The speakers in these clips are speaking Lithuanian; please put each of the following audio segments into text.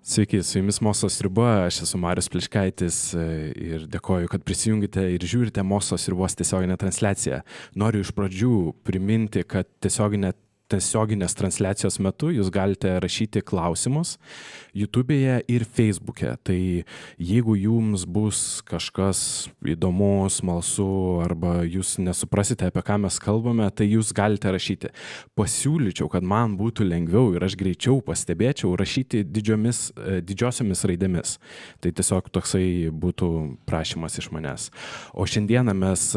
Sveiki, su jumis Mokslo sriuba, aš esu Marius Pliškaitis ir dėkoju, kad prisijungite ir žiūrite Mokslo sriubos tiesioginę transliaciją. Noriu iš pradžių priminti, kad tiesioginės transliacijos metu jūs galite rašyti klausimus YouTube'e ir Facebook'e. Tai jeigu jums bus kažkas įdomu, smalsu arba jūs nesuprasite, apie ką mes kalbame, tai jūs galite rašyti. Pasiūlyčiau, kad man būtų lengviau ir aš greičiau pastebėčiau rašyti didžiosiomis raidėmis. Tai tiesiog toksai būtų prašymas iš manęs. O šiandieną mes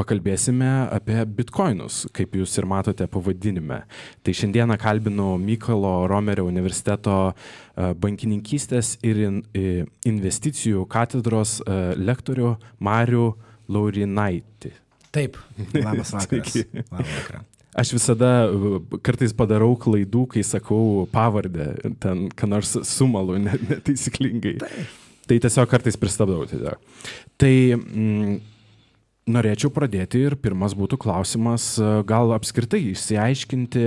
pakalbėsime apie bitkoinus, kaip jūs ir matote pavadinime. Tai šiandieną kalbinu Mykolo Romerio universiteto bankininkystės ir investicijų katedros lektorių Marių Laurinaitį. Taip, labas vakaras. Labas vakaras. Aš visada kartais padarau klaidų, kai sakau pavardę, ten ką nors sumalu netaisyklingai. Tai tiesiog kartais pristabdau. Tai norėčiau pradėti ir pirmas būtų klausimas, gal apskritai išsiaiškinti,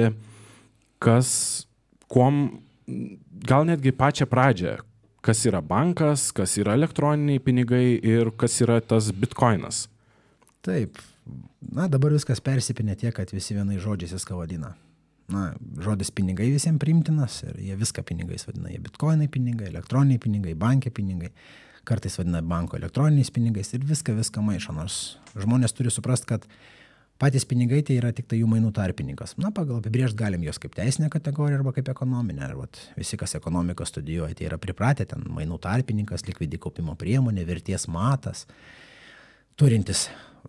gal netgi pačią pradžią, kas yra bankas, kas yra elektroniniai pinigai ir kas yra tas bitkoinas. Taip, dabar viskas persipinė tiek, kad visi vienais žodžiais viską vadina. Žodis pinigai visiems priimtinas ir jie viską pinigais vadina. Jie bitkoinai pinigai, elektroniniai pinigai, bankai pinigai. Kartais vadina banko elektroniniais pinigais ir viską maišo, nors žmonės turi suprasti, kad patys pinigai tai yra tik tai jų mainų tarpininkas. Pagal apibrėžti galim jos kaip teisinę kategoriją arba kaip ekonominę. Visi, kas ekonomiką studijuoja, tai yra pripratę ten mainų tarpininkas, likvidi kaupimo priemonė, vertės matas, turintis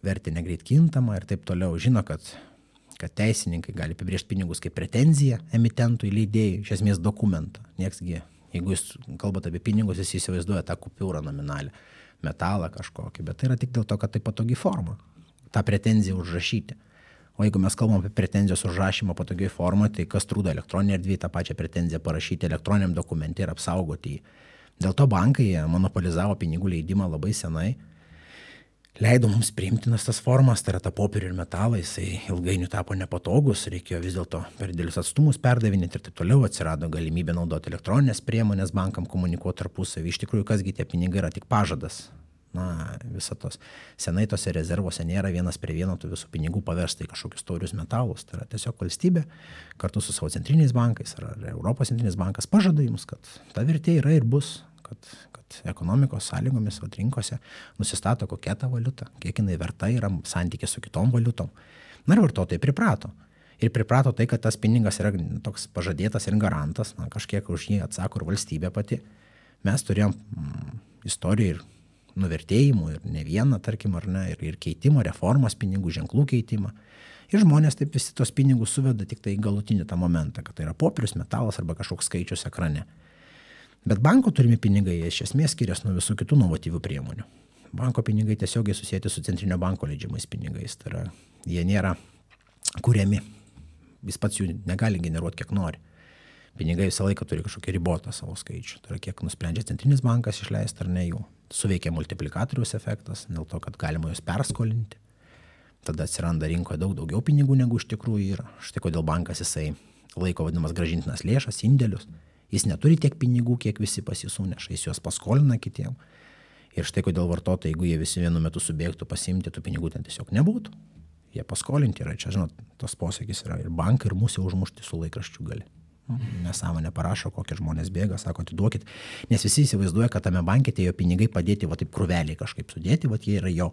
vertę negreit kintamą ir taip toliau. Žino, kad teisininkai gali apibrėžti pinigus kaip pretenziją emitentui, leidėjui, iš esmės dokumentą. Nieksgi, jeigu jūs kalbate apie pinigus, jūs įsivaizduoja tą kupiūrą nominalę, metalą kažkokį, bet tai yra tik dėl to, kad tai patogi forma, tą pretenziją užrašyti. O jeigu mes kalbam apie pretenzijos užrašymą patogiai formą, tai kas trūdo elektroninė erdvė tą pačią pretenziją parašyti elektroniniam dokumente ir apsaugoti jį. Dėl to bankai monopolizavo pinigų leidimą labai senai, leido mums priimtinas tas formas, tai yra ta popierių ir metalai, jisai ilgainiui tapo nepatogus, reikėjo vis dėlto per didelius atstumus perdavinėti ir taip toliau, atsirado galimybė naudoti elektroninės priemonės bankam komunikuoti tarpusavį. Iš tikrųjų, kasgi tie pinigai yra tik pažadas. Visą tos senai tose rezervuose nėra vienas prie vieno tų visų pinigų paversta į kažkokius taurius metalus. Tai yra tiesiog valstybė kartu su savo centriniais bankais ar Europos centrinis bankas pažada jums, kad ta vertė yra ir bus. Kad ekonomikos sąlygomis rinkose nusistato kokia ta valiuta, kiek jinai verta yra santykis su kitom valiutom. Ir vartotojai priprato. Ir priprato tai, kad tas pinigas yra toks pažadėtas ir garantas, kažkiek už jį atsako ir valstybė pati. Mes turėjom istoriją ir nuvertėjimų, ir ne vieną, tarkim, ar ne, ir keitimo, reformas pinigų, ženklų keitimą. Ir žmonės taip visi tos pinigus suveda tik tai į galutinį tą momentą, kad tai yra popierius, metalas arba kažkoks skaičius ekrane. Bet banko turimi pinigai iš esmės skiriasi nuo visų kitų inovatyvių priemonių. Banko pinigai tiesiogiai susijęti su centrinio banko leidžiamais pinigais. Tai yra, jie nėra kuriami. Jis pats jų negali generuoti, kiek nori. Pinigai visą laiką turi kažkokį ribotą savo skaičių. Tai yra, kiek nusprendžia centrinis bankas išleisti ar ne jų. Suveikia multiplikatoriaus efektas, dėl to, kad galima juos perskolinti. Tada atsiranda rinkoje daugiau pinigų, negu iš tikrųjų yra. Štai kodėl bankas jisai laiko vadinamas grąžintinas lėšas, indėlius. Jis neturi tiek pinigų, kiek visi pas jį suneša, jis juos paskolina kitiem. Ir štai kodėl vartotojai, jeigu jie visi vienu metu subėgtų pasiimti, tų pinigų ten tiesiog nebūtų. Jie paskolinti yra, čia, žinot, tos posakis yra ir bankai, ir musė užmušti su laikraščiu gali. Nesąmonė parašo, kokie žmonės bėga, sako, atiduokit, nes visi įsivaizduoja, kad tame banke tie jo pinigai padėti, taip krūveliai kažkaip sudėti, jie yra jo.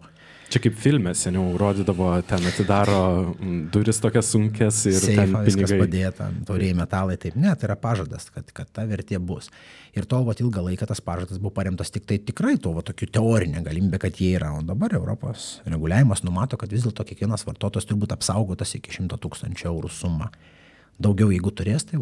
Čia kaip filme seniau rodydavo, ten atidaro duris tokias sunkes ir seifą, ten pinigai. Viskas padėta, tauriai metalai, taip, ne, tai yra pažadas, kad ta vertė bus. Ir tol ilgą laiką tas pažadas buvo paremtas tik tai tikrai to tokiu teorinė galimybė, kad jie yra. O dabar Europos reguliavimas numato, kad vis dėlto kiekvienas vartotojas turi būti apsaugotas iki 100 000 eurų sumą. Daugiau jeigu turės, tai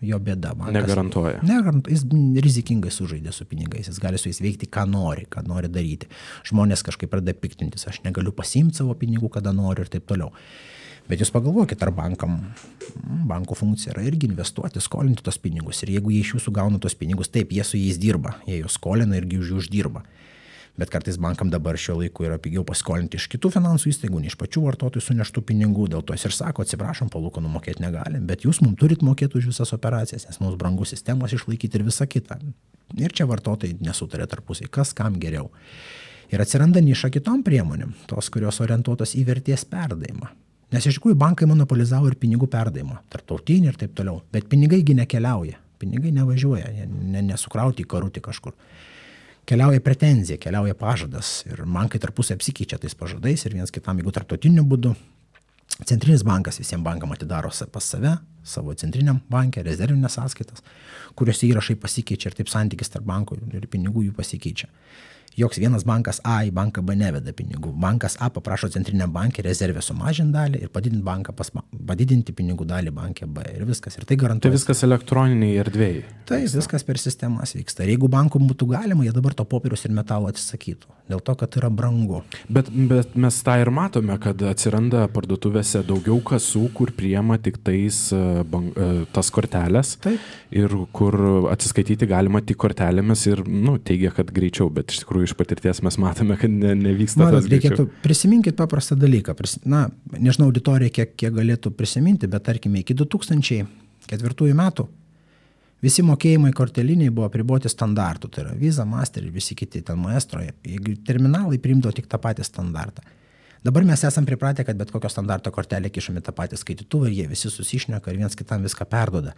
jo bėda. Negarantuoja. Jis rizikingai sužaidė su pinigais, jis gali su jais veikti, ką nori daryti. Žmonės kažkaip pradeda piktintis, aš negaliu pasiimti savo pinigų, kada noriu ir taip toliau. Bet jūs pagalvokit, ar banko funkcija yra irgi investuoti, skolinti tos pinigus. Ir jeigu jie iš jūsų gauna tos pinigus, taip, jie su jais dirba, jie juos skolina irgi už jų uždirba. Bet kartais bankam dabar šiuo laiku yra pigiau paskolinti iš kitų finansų įstaigų, ne iš pačių vartotojų suneštų pinigų, dėl to jis ir sako, atsiprašom, palūkanų mokėti negalim, bet jūs mums turit mokėti už visas operacijas, nes mums brangu sistemos išlaikyti ir visa kita. Ir čia vartotojai nesutarė tarpusiai, kas kam geriau. Ir atsiranda niša kitom priemonėm, tos, kurios orientuotos į vertės perdavimą. Nes iš tikrųjų bankai monopolizavo ir pinigų perdavimą, tarptautinį ir taip toliau, bet pinigaigi nekeliauja, pinigai nevažiuoja, nesukrauti į karutį kažkur. Keliauja pretenzija, keliauja pažadas ir bankai tarpusai apsikeičia tais pažadais ir vienas kitam, jeigu tarptautiniu būdu. Centrinis bankas visiems bankam atidaro pas save, savo centriniam banke, rezervinės sąskaitas, kuriuose įrašai pasikeičia ir taip santykis tarp bankų ir pinigų jų pasikeičia. Joks vienas bankas A į banką B neveda pinigų. Bankas A paprašo centriniam bankė rezervę sumažinti dalį ir padidinti pinigų dalį bankė B ir viskas. Ir tai garantuoja. Tai viskas elektroniniai erdvėjai. Tai viskas per sistemas vyksta. Ir jeigu bankų būtų galima, jie dabar to popieriaus ir metalo atsisakytų. Dėl to, kad yra brangu. Bet mes tą ir matome, kad atsiranda parduotuvėse daugiau kasų, kur priema tik tas kortelės. Taip. Ir kur atsiskaityti galima tik kortelėmis ir teigia, kad greičiau, bet iš tikrųjų iš patirties mes matome, kad nevyksta tas greičiau. Prisiminkit paprastą dalyką. Nežinau auditorija, kiek galėtų prisiminti, bet tarkime iki 2004 metų visi mokėjimai korteliniai buvo apriboti standartų, tai yra Visa, Master ir visi kiti ten Maestro, jeigu terminalai priimdavo tik tą patį standartą. Dabar mes esam pripratę, kad bet kokio standarto kortelę kišame tą patį skaitytuvą ir jie visi susišneka ir viens kitam viską perduoda.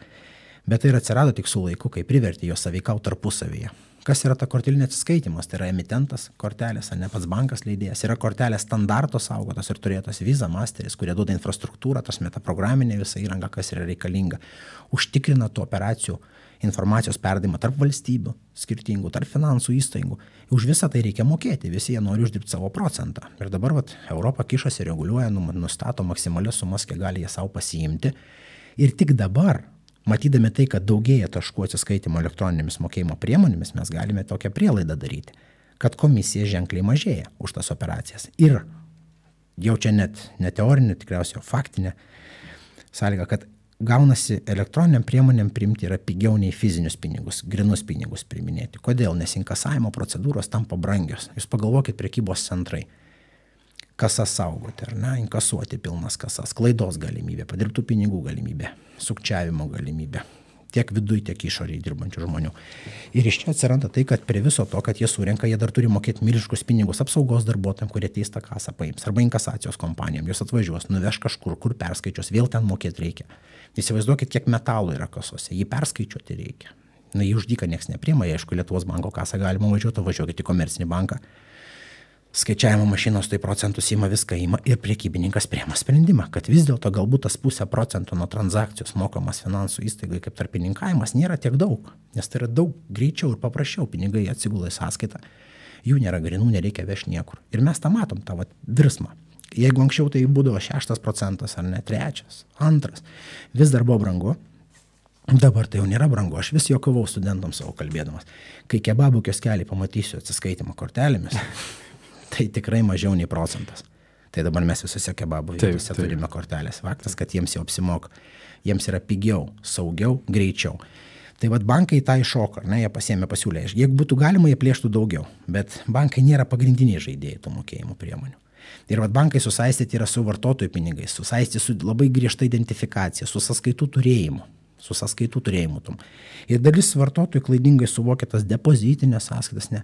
Bet tai ir atsirado tik su laiku, kai privertė jos sąveikauti tarpusavyje. Kas yra ta kortelinė atsiskaitimas? Tai yra emitentas kortelės, ne pats bankas leidėjas. Yra kortelės standarto saugotas ir turėtas Visa, Masteris, kurie duoda infrastruktūrą, tas metaprograminė visa įranga, kas yra reikalinga. Užtikrina tų operacijų informacijos perdavimą tarp valstybių skirtingų, tarp finansų įstaigų. Už visą tai reikia mokėti, visi jie nori uždirbti savo procentą. Ir dabar Europa kišasi, reguliuoja, nustato maksimalias sumas, kiek gali jie savo pasiimti. Ir tik dabar, matydami tai, kad daugėja taškų atsiskaitimo elektroninėmis mokėjimo priemonėmis, mes galime tokią prielaidą daryti, kad komisija ženkliai mažėja už tas operacijas. Ir jau čia net ne teorinė, tikriausiai faktinė sąlyga, kad gaunasi elektroniniam priemonėm priimti yra pigiau nei fizinius pinigus, grinus pinigus priiminėti. Kodėl? Nes inkasavimo procedūros tampa brangios. Jūs pagalvokit, prekybos centrai. Kasas saugoti, ar ne, inkasuoti pilnas kasas, klaidos galimybė, padirbtų pinigų galimybė, sukčiavimo galimybė, tiek viduje, tiek išorėje dirbančių žmonių. Ir iš čia atsiranda tai, kad prie viso to, kad jie surenka, jie dar turi mokėti milžiniškus pinigus apsaugos darbuotojams, kurie teistą kasą paims, arba inkasacijos kompanijom, jos atvažiuos, nuveš kažkur, kur perskaičios, vėl ten mokėti reikia. Įsivaizduokit, kiek metalų yra kasose, jį perskaičiuoti reikia. Jį už dyką nieks nepriima, aišku, Lietuvos banko kasą galima važiuokit į komercinį banką. Skaičiavimo mašinos tai procentus ima, viską ima ir prekybininkas priima sprendimą, kad vis dėlto galbūt tas 0,5% nuo transakcijos mokamas finansų įstaigai kaip tarpininkavimas nėra tiek daug, nes tai yra daug greičiau ir paprasčiau, pinigai atsigula į sąskaitą, jų nėra grinų, nereikia vežti niekur. Ir mes tą matom, tą virsmą. Jeigu anksčiau tai būdavo 6% ar ne 3%, 2%, vis dar buvo brangu. Dabar tai jau nėra brangu, aš vis juokavau studentams savo kalbėdamas. Kai kebabų kioskelį pamatysiu atsiskaitimą kortelėmis, tai tikrai mažiau nei 1%. Tai dabar mes visose kebabų vietose turime kortelės. Faktas, kad jiems jau apsimoka, jiems yra pigiau, saugiau, greičiau. Tai bankai tą iššoka, jie pasiėmė pasiūlę. Jeigu būtų galima, jie plėštų daugiau, bet bankai nėra pagrindiniai žaidėjai tų mokėjimų priemonių. Ir bankai susaistyti yra su vartotojų pinigais, susaistyti su labai griežta identifikacija, su sąskaitų turėjimu. Ir dalis vartotojų klaidingai suvokia tas depozitinės sąskaitas. Ne.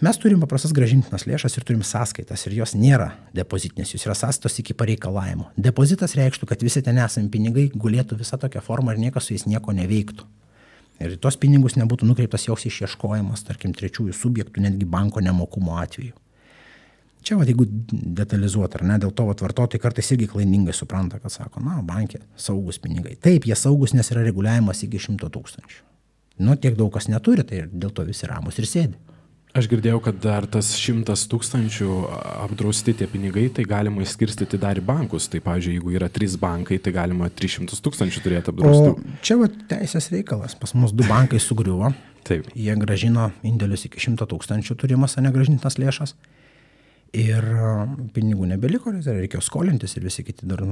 Mes turim paprastas grąžintinas lėšas ir turim sąskaitas ir jos nėra depozitinės, jos yra sąskaitos iki pareikalavimo. Depozitas reikštų, kad visi ten esami pinigai gulėtų visą tokią formą ir niekas su jais nieko neveiktų. Ir tos pinigus nebūtų nukreiptas joks išieškojimas, tarkim, trečiųjų subjektų, netgi banko nemokumo atveju. Čia, jeigu detalizuoti, ar ne, dėl to vartotojai kartais irgi klaidingai supranta, kad sako, bankė saugus pinigai. Taip, jie saugus, nes yra reguliavimas iki 100 000. Tiek daug kas neturi, tai dėl to visi ramus ir sėdi. Aš girdėjau, kad dar tas 100 000 apdrausti tie pinigai, tai galima išskirstyti dar į bankus. Tai, pavyzdžiui, jeigu yra 3 bankai, tai galima 300 000 turėti apdraustų. O čia teisės reikalas. Pas mus 2 bankai sugriuvo. Taip. Jie grąžino indėlius iki 100 000 turimas, negrąžintas lėšas. Ir pinigų nebeliko, reikėjo skolintis ir visi kiti dar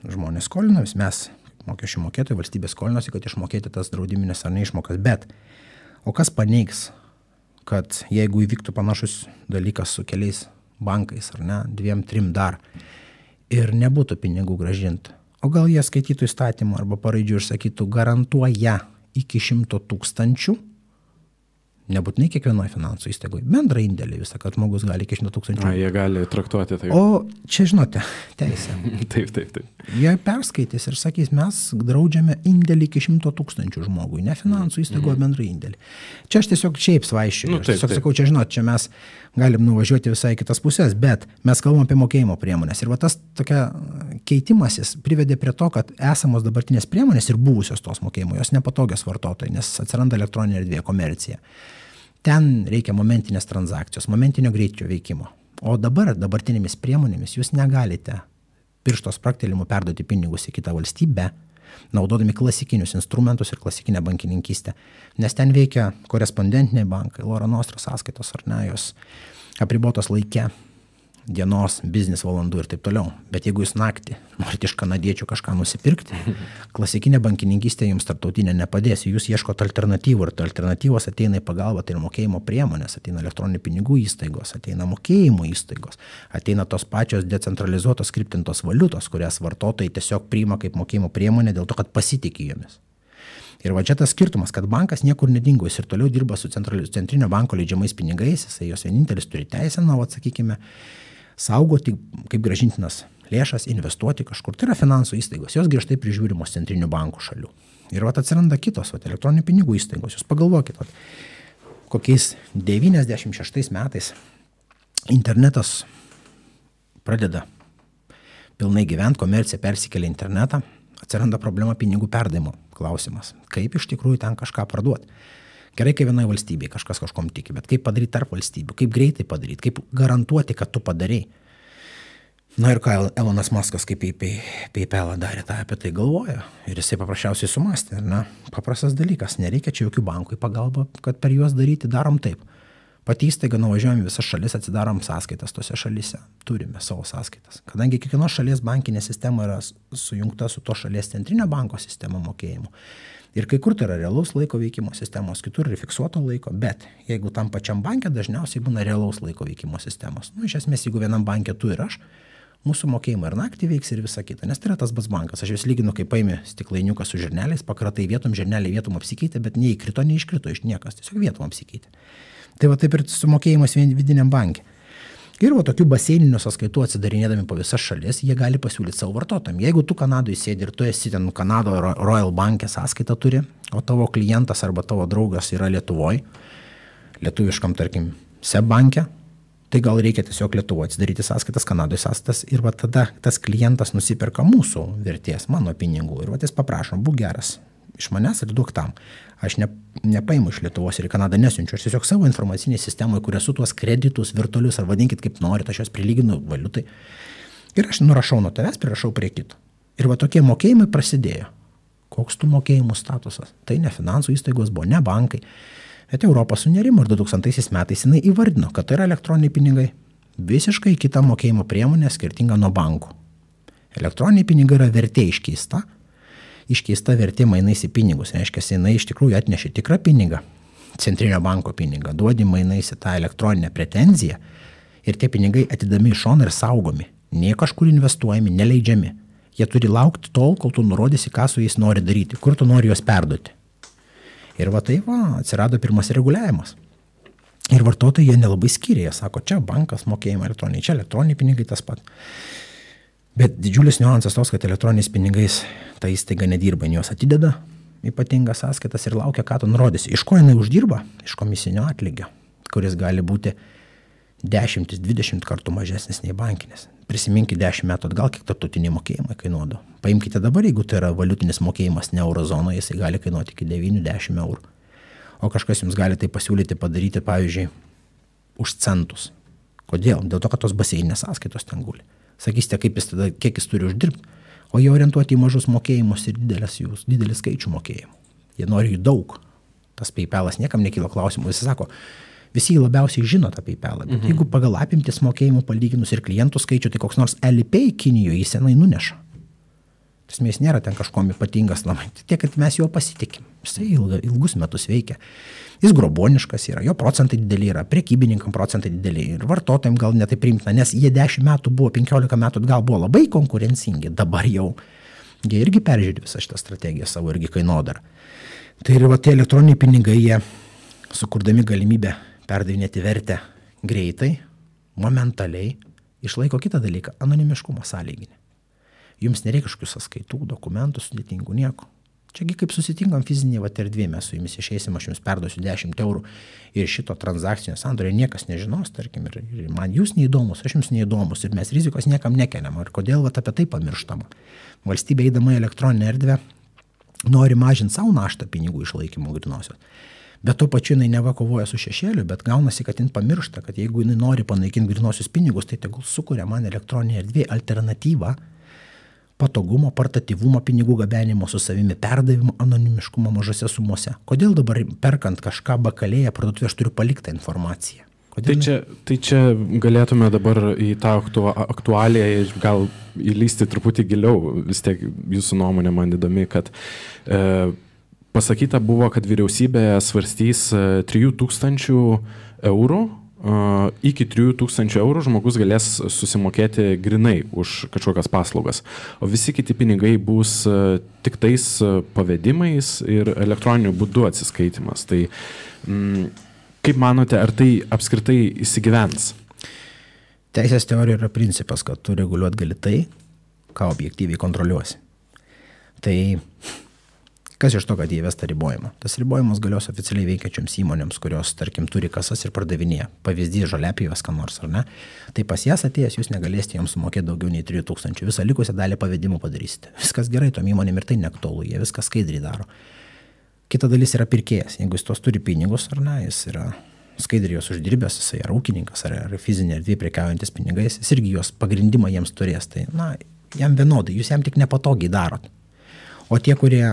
žmonės skolino. Mes, mokesčių mokėtojai, valstybė skolinosi, kad išmokėti tas draudiminės ar neišmokas. Bet, o kas paneigs, kad jeigu įvyktų panašus dalykas su keliais bankais, ar ne, 2-3 dar, ir nebūtų pinigų gražinti, o gal jie skaitytų įstatymą arba paraidžių ir sakytų, garantuoja iki 100 000, nebūtinai kiekvienoje finansų įstaigoje, bendrą indėlį visą, kad žmogus gali iki 100 000. Jie gali traktuoti tai. O čia, žinote, teisė. Taip. Jie perskaitys ir sakys, mes draudžiame indėlį iki 100 000 žmogui, ne finansų įstaigoje bendrą indėlį. Čia aš tiesiog šiaip svaiščiu. Aš tiesiog sakau, čia žinot, čia mes galim nuvažiuoti visai kitas pusės, bet mes kalbam apie mokėjimo priemonės. Ir va tas tokia keitimasis privedė prie to, kad esamos dabartinės priemonės ir buvusios tos mokėjimo, jos nepatogios vartotojai, nes atsiranda elektroninė erdvė, komercija. Ten reikia momentinės transakcijos, momentinio greičio veikimo. O dabartinėmis priemonėmis jūs negalite piršto spraktelimu perduoti pinigus į kitą valstybę, naudodami klasikinius instrumentus ir klasikinę bankininkystę. Nes ten veikia korespondentiniai bankai, Loro Nostra sąskaitos ar ne, jos apribotos laike, dienos, biznis valandų ir taip toliau. Bet jeigu jūs naktį norite iš kanadiečių kažką nusipirkti, klasikinė bankininkystė jums tarptautinė nepadės. Jūs ieškote alternatyvų ir alternatyvos ateina į pagalbą, tai ir mokėjimo priemonės, ateina elektroninių pinigų įstaigos, ateina mokėjimo įstaigos, ateina tos pačios decentralizuotos skriptintos valiutos, kurias vartotojai tiesiog priima kaip mokėjimo priemonė dėl to, kad pasitikė jomis. Ir va čia tas skirtumas, kad bankas niekur nedingo, jis ir toliau dirba su centrinio banko leidžiamais pinigais, jisai jos vienintelis turi teisę, sakykime, saugoti kaip grąžintinas lėšas, investuoti kažkur. Tai yra finansų įstaigos, jos griežtai prižiūrimos centrinių bankų šalių. Ir atsiranda kitos elektroninių pinigų įstaigos. Jūs pagalvokit, kokiais 96 metais internetas pradeda pilnai gyventi, komercija persikelia internetą, atsiranda problema pinigų perdavimo klausimas. Kaip iš tikrųjų ten kažką parduoti? Gerai, kai vienoje valstybėje kažkas kažkom tiki, bet kaip padaryti tarp valstybių, kaip greitai padaryti, kaip garantuoti, kad tu padarei. Na ir ką Elonas Muskas, kaip PayPalą darė, tą apie tai galvoja. Ir jisai paprasčiausiai sumastė, ne? Paprastas dalykas, nereikia čia jokių bankų į pagalbą, kad per juos daryti, darom taip. Pati įstaiga nuvažiuojam visas šalis, atsidarom sąskaitas tose šalyse, turime savo sąskaitas. Kadangi kiekvienos šalies bankinė sistema yra sujungta su to šalies centrinio banko sistema mokėjimų. Ir kai kur tai yra realaus laiko veikimo sistemos, kitur yra fiksuoto laiko, bet jeigu tam pačiam banke dažniausiai būna realaus laiko veikimo sistemos. Iš esmės, jeigu vienam banke tu ir aš, mūsų mokėjimai ir naktį veiks ir visa kita, nes tai yra tas pats bankas. Aš vis lyginu, kaip paimi stiklainiuką su žirneliais, pakratai vietom, žirneliai vietom apsikeitė, bet neįkrito, neiškrito iš niekas, tiesiog vietom apsikeitė. Tai va taip ir su mokėjimas vidiniam banke. Ir va tokių baseininių sąskaitų atsidarinėdami po visas šalis, jie gali pasiūlyti savo vartotojams. Jeigu tu Kanadoje sėdi ir tu esi ten Kanado Royal Bank'e sąskaitą turi, o tavo klientas arba tavo draugas yra Lietuvoje, lietuviškam, tarkim, SEB banke, tai gal reikia tiesiog Lietuvoje atsidaryti sąskaitas, Kanadoje sąskaitas ir va tada tas klientas nusiperka mūsų vertės, mano pinigų. Ir va jis paprašom, būk geras iš manęs ir duok tam. Aš nepaimu iš Lietuvos ir į Kanadą nesiunčiu, aš tiesiog savo informacinėje sistemoje, kur esu tuos kreditus virtualius, ar vadinkit kaip norit, aš juos prilyginu valiutai. Ir aš nurašau nuo tavęs, prirašau prie kito. Ir va tokie mokėjimai prasidėjo. Koks tų mokėjimų statusas? Tai ne finansų įstaigos buvo, ne bankai. Bet Europa sunerimo ir 2000 metais jinai įvardino, kad tai yra elektroniniai pinigai. Visiškai kita mokėjimo priemonė skirtinga nuo bankų. Elektroniniai pinigai yra vertė iškeista vertė mainais į pinigus. Reiškia, jinai iš tikrųjų atnešė tikrą pinigą, centrinio banko pinigą, duodi mainais į tą elektroninę pretenziją ir tie pinigai atidami į šoną ir saugomi. Nie kažkur investuojami, neleidžiami. Jie turi laukti tol, kol tu nurodysi, ką su jais nori daryti, kur tu nori juos perduoti. Ir va taip atsirado pirmas reguliavimas. Ir vartotojai jie nelabai skyrė, jie sako, čia bankas mokėjimai elektroniniai, čia elektroniniai pinigai tas pat. Bet didžiulis niuansas tos, kad elektroniniais pinigais ta įstaiga nedirba, juos atideda ypatingas sąskaitas ir laukia, ką tu nurodysi. Iš ko jinai uždirba? Iš komisinio atlygio, kuris gali būti 10-20 kartų mažesnis nei bankinis. Prisiminkite 10 metų atgal, kiek tarptautiniai mokėjimai kainuodo. Paimkite dabar, jeigu tai yra valiutinis mokėjimas ne eurozonoje, jisai gali kainuoti iki 9-10 eurų. O kažkas jums gali tai pasiūlyti padaryti, pavyzdžiui, už centus. Kodėl? Dėl to, kad tos baseininės sąskaitos ten guli. Sakysite, kiek jis turi uždirbti, o jie orientuoti į mažus mokėjimus ir didelį skaičių mokėjimų. Jie nori jų daug. Tas PayPalas niekam nekyla klausimų. Jis sako, visi labiausiai žino tą PayPalą, bet jeigu pagal apimtis mokėjimų palyginus ir klientų skaičių, tai koks nors Alipay Kinijoje jis senai nuneša. Jis nėra ten kažkom ypatingas namai. Tiek, kad mes juo pasitikim. Jisai ilgus metus veikia. Jis groboniškas yra, jo procentai dideli yra, prekybininkam procentai dideli ir vartotojams gal netai priimtina, nes jie 10 metų buvo, 15 metų atgal buvo labai konkurencingi, dabar jau jie irgi peržiūri visą šitą strategiją savo irgi kainodarą. Tai ir va tie elektroniniai pinigai, jie sukurdami galimybę perdavinėti vertę greitai, momentaliai, išlaiko kitą dalyką, anonimiškumo sąlyginį. Jums nereikia kažkokių sąskaitų, dokumentų, sudėtingų, nieko. Čiagi kaip susitinkam fizinėje erdvėje, mes su jumis išeisim, aš jums perduosiu 10 eurų ir šito transakcinio sandorio niekas nežinos, tarkim, ir man jūs neįdomus, aš jums neįdomus ir mes rizikos niekam nekeliam. Ir kodėl apie tai pamirštama? Valstybė eidama į elektroninę erdvę nori mažinti savo naštą pinigų išlaikymo grinosios. Bet tuo pačiu jinai neva kovoja su šešėliu, bet gaunasi, kad jin pamiršta, kad jeigu jinai nori panaikinti grinosius pinigus, tai tegul sukuria man elektroninė erdvė alternatyvą patogumo, portatyvumo, pinigų gabenimo su savimi, perdavimo, anonimiškumo mažose sumose. Kodėl dabar perkant kažką bakalėje parduotuvėje aš turiu paliktą informaciją? Tai čia galėtume dabar į tą aktualiją gal įlysti truputį giliau. Vis tiek jūsų nuomonė man įdomi, kad pasakyta buvo, kad vyriausybė svarstys 3000 eurų. Iki 3000 eurų žmogus galės susimokėti grinai už kažkokias paslaugas, o visi kiti pinigai bus tik tais pavedimais ir elektroniniu būdu atsiskaitimas. Tai kaip manote, ar tai apskritai įsigyvens? Teisės teorija yra principas, kad tu reguliuot gali tai, ką objektyviai kontroliuosi. Tai kas iš to, kad įvesta ribojimą? Tas ribojimas galios oficialiai veikiančioms įmonėms, kurios, tarkim, turi kasas ir pardavinėja. Pavyzdys žoliapjovės ką nors, ar ne? Tai pas jas atėjęs jūs negalėsite joms sumokėti daugiau nei 3000. Visą likusią dalį pavedimų padarysite. Viskas gerai, tom įmonėm ir tai neaktualu, jie viską skaidriai daro. Kita dalis yra pirkėjas. Jeigu jis tos turi pinigus, ar ne, jis yra skaidriai jos uždirbęs, jis yra ūkininkas, ar fizinė erdvė prekiaujantis pinigais, jis irgi jos pagrindimą jiems turės. Tai, jam vienodai, jūs jam tik nepatogiai darot. O tie, kurie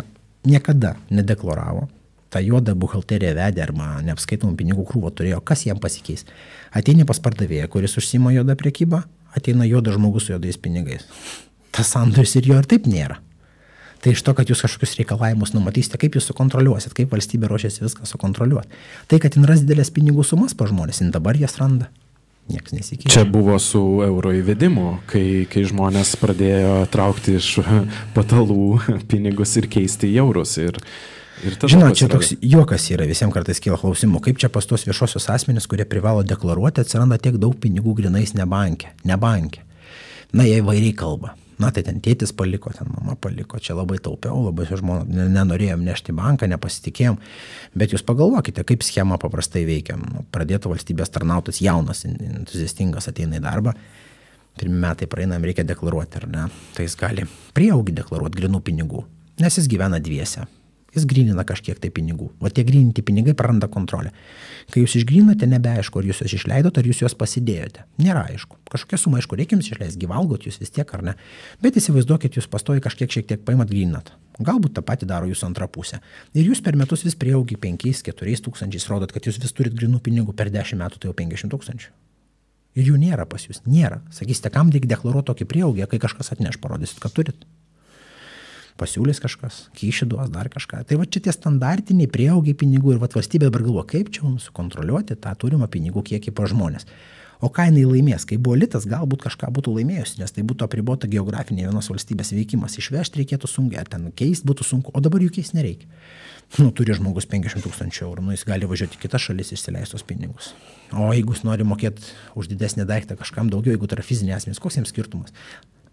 niekada nedeklaravo, tą juodą buhalteriją vedė arba neapskaitomų pinigų krūvą turėjo, kas jam pasikeis? Ateini pas pardavėją, kuris užsima juodą prekybą, ateina juodas žmogus su juodais pinigais. Tas sandoris ir jo ir taip nėra. Tai iš to, kad jūs kažkokius reikalavimus numatysite, kaip jūs sukontroliuosit, kaip valstybė ruošiasi viską sukontroliuoti. Tai, kad jin ras didelės pinigų sumas pa žmonės, jin dabar jas randa. Niekas nesikeičia. Čia buvo su euro įvedimu, kai žmonės pradėjo traukti iš patalų pinigus ir keisti į eurus. Žinot, čia toks juokas yra, visiems kartais kyla klausimų, kaip čia pas tos viešosios asmenys, kurie privalo deklaruoti, atsiranda tiek daug pinigų grinais ne banke. Na, jie įvairiai kalba. Na, tai ten tėtis paliko, ten mama paliko, čia labai taupiau, labai žmonės nenorėjom nešti banką, nepasitikėjom, bet jūs pagalvokite, kaip schema paprastai veikia. Pradėtų valstybės tarnautas jaunas, entuziastingas ateina į darbą, pirmi metai praeinam, reikia deklaruoti, ar ne, tai jis gali prieaugį deklaruoti grinų pinigų, nes jis gyvena dviese. Jis grynina kažkiek tai pinigų. O tie gryninti pinigai praranda kontrolę. Kai jūs išgrynate, nebeaišku, ar jūs juos išleidot, ar jūs juos pasidėjote. Nėra aišku. Kažkokia suma, aišku, reikia jums išleisti, gyvalgot jūs vis tiek, ar ne. Bet įsivaizduokit, jūs pastoji šiek tiek paimat gryninat. Galbūt tą patį daro jūsų antra pusė. Ir jūs per metus vis prieaugi 5-4 tūkstančiais rodot, kad jūs vis turit grynų pinigų, per 10 metų tai jau 500 000. Ir jų nėra pas jūs. Nėra. Sakysite, kam reikia deklaruoti tokį prieaugį, kai kažkas atneš, parodysit, kad turit. Pasiūlys kažkas, kyšį duos dar kažką. Tai va čia tie standartiniai prieaugiai pinigų ir va valstybė dabar galvo, kaip čia mums sukontroliuoti tą turimą pinigų kiekį pa žmonės. O ką jinai laimės? Kai buvo litas, galbūt kažką būtų laimėjusi, nes tai būtų apribota geografinė vienos valstybės veikimas. Išvežti reikėtų sunkiai, ten keisti būtų sunku, o dabar jų keisti nereikia. Turi žmogus 500 000 eurų, jis gali važiuoti į kitas šalis išsileistos pinigus. O jeigu jis nori mokėti už didesnį daiktą kažkam daugiau, jeigu tai yra fizinė asmenys, koks jiems skirtumas?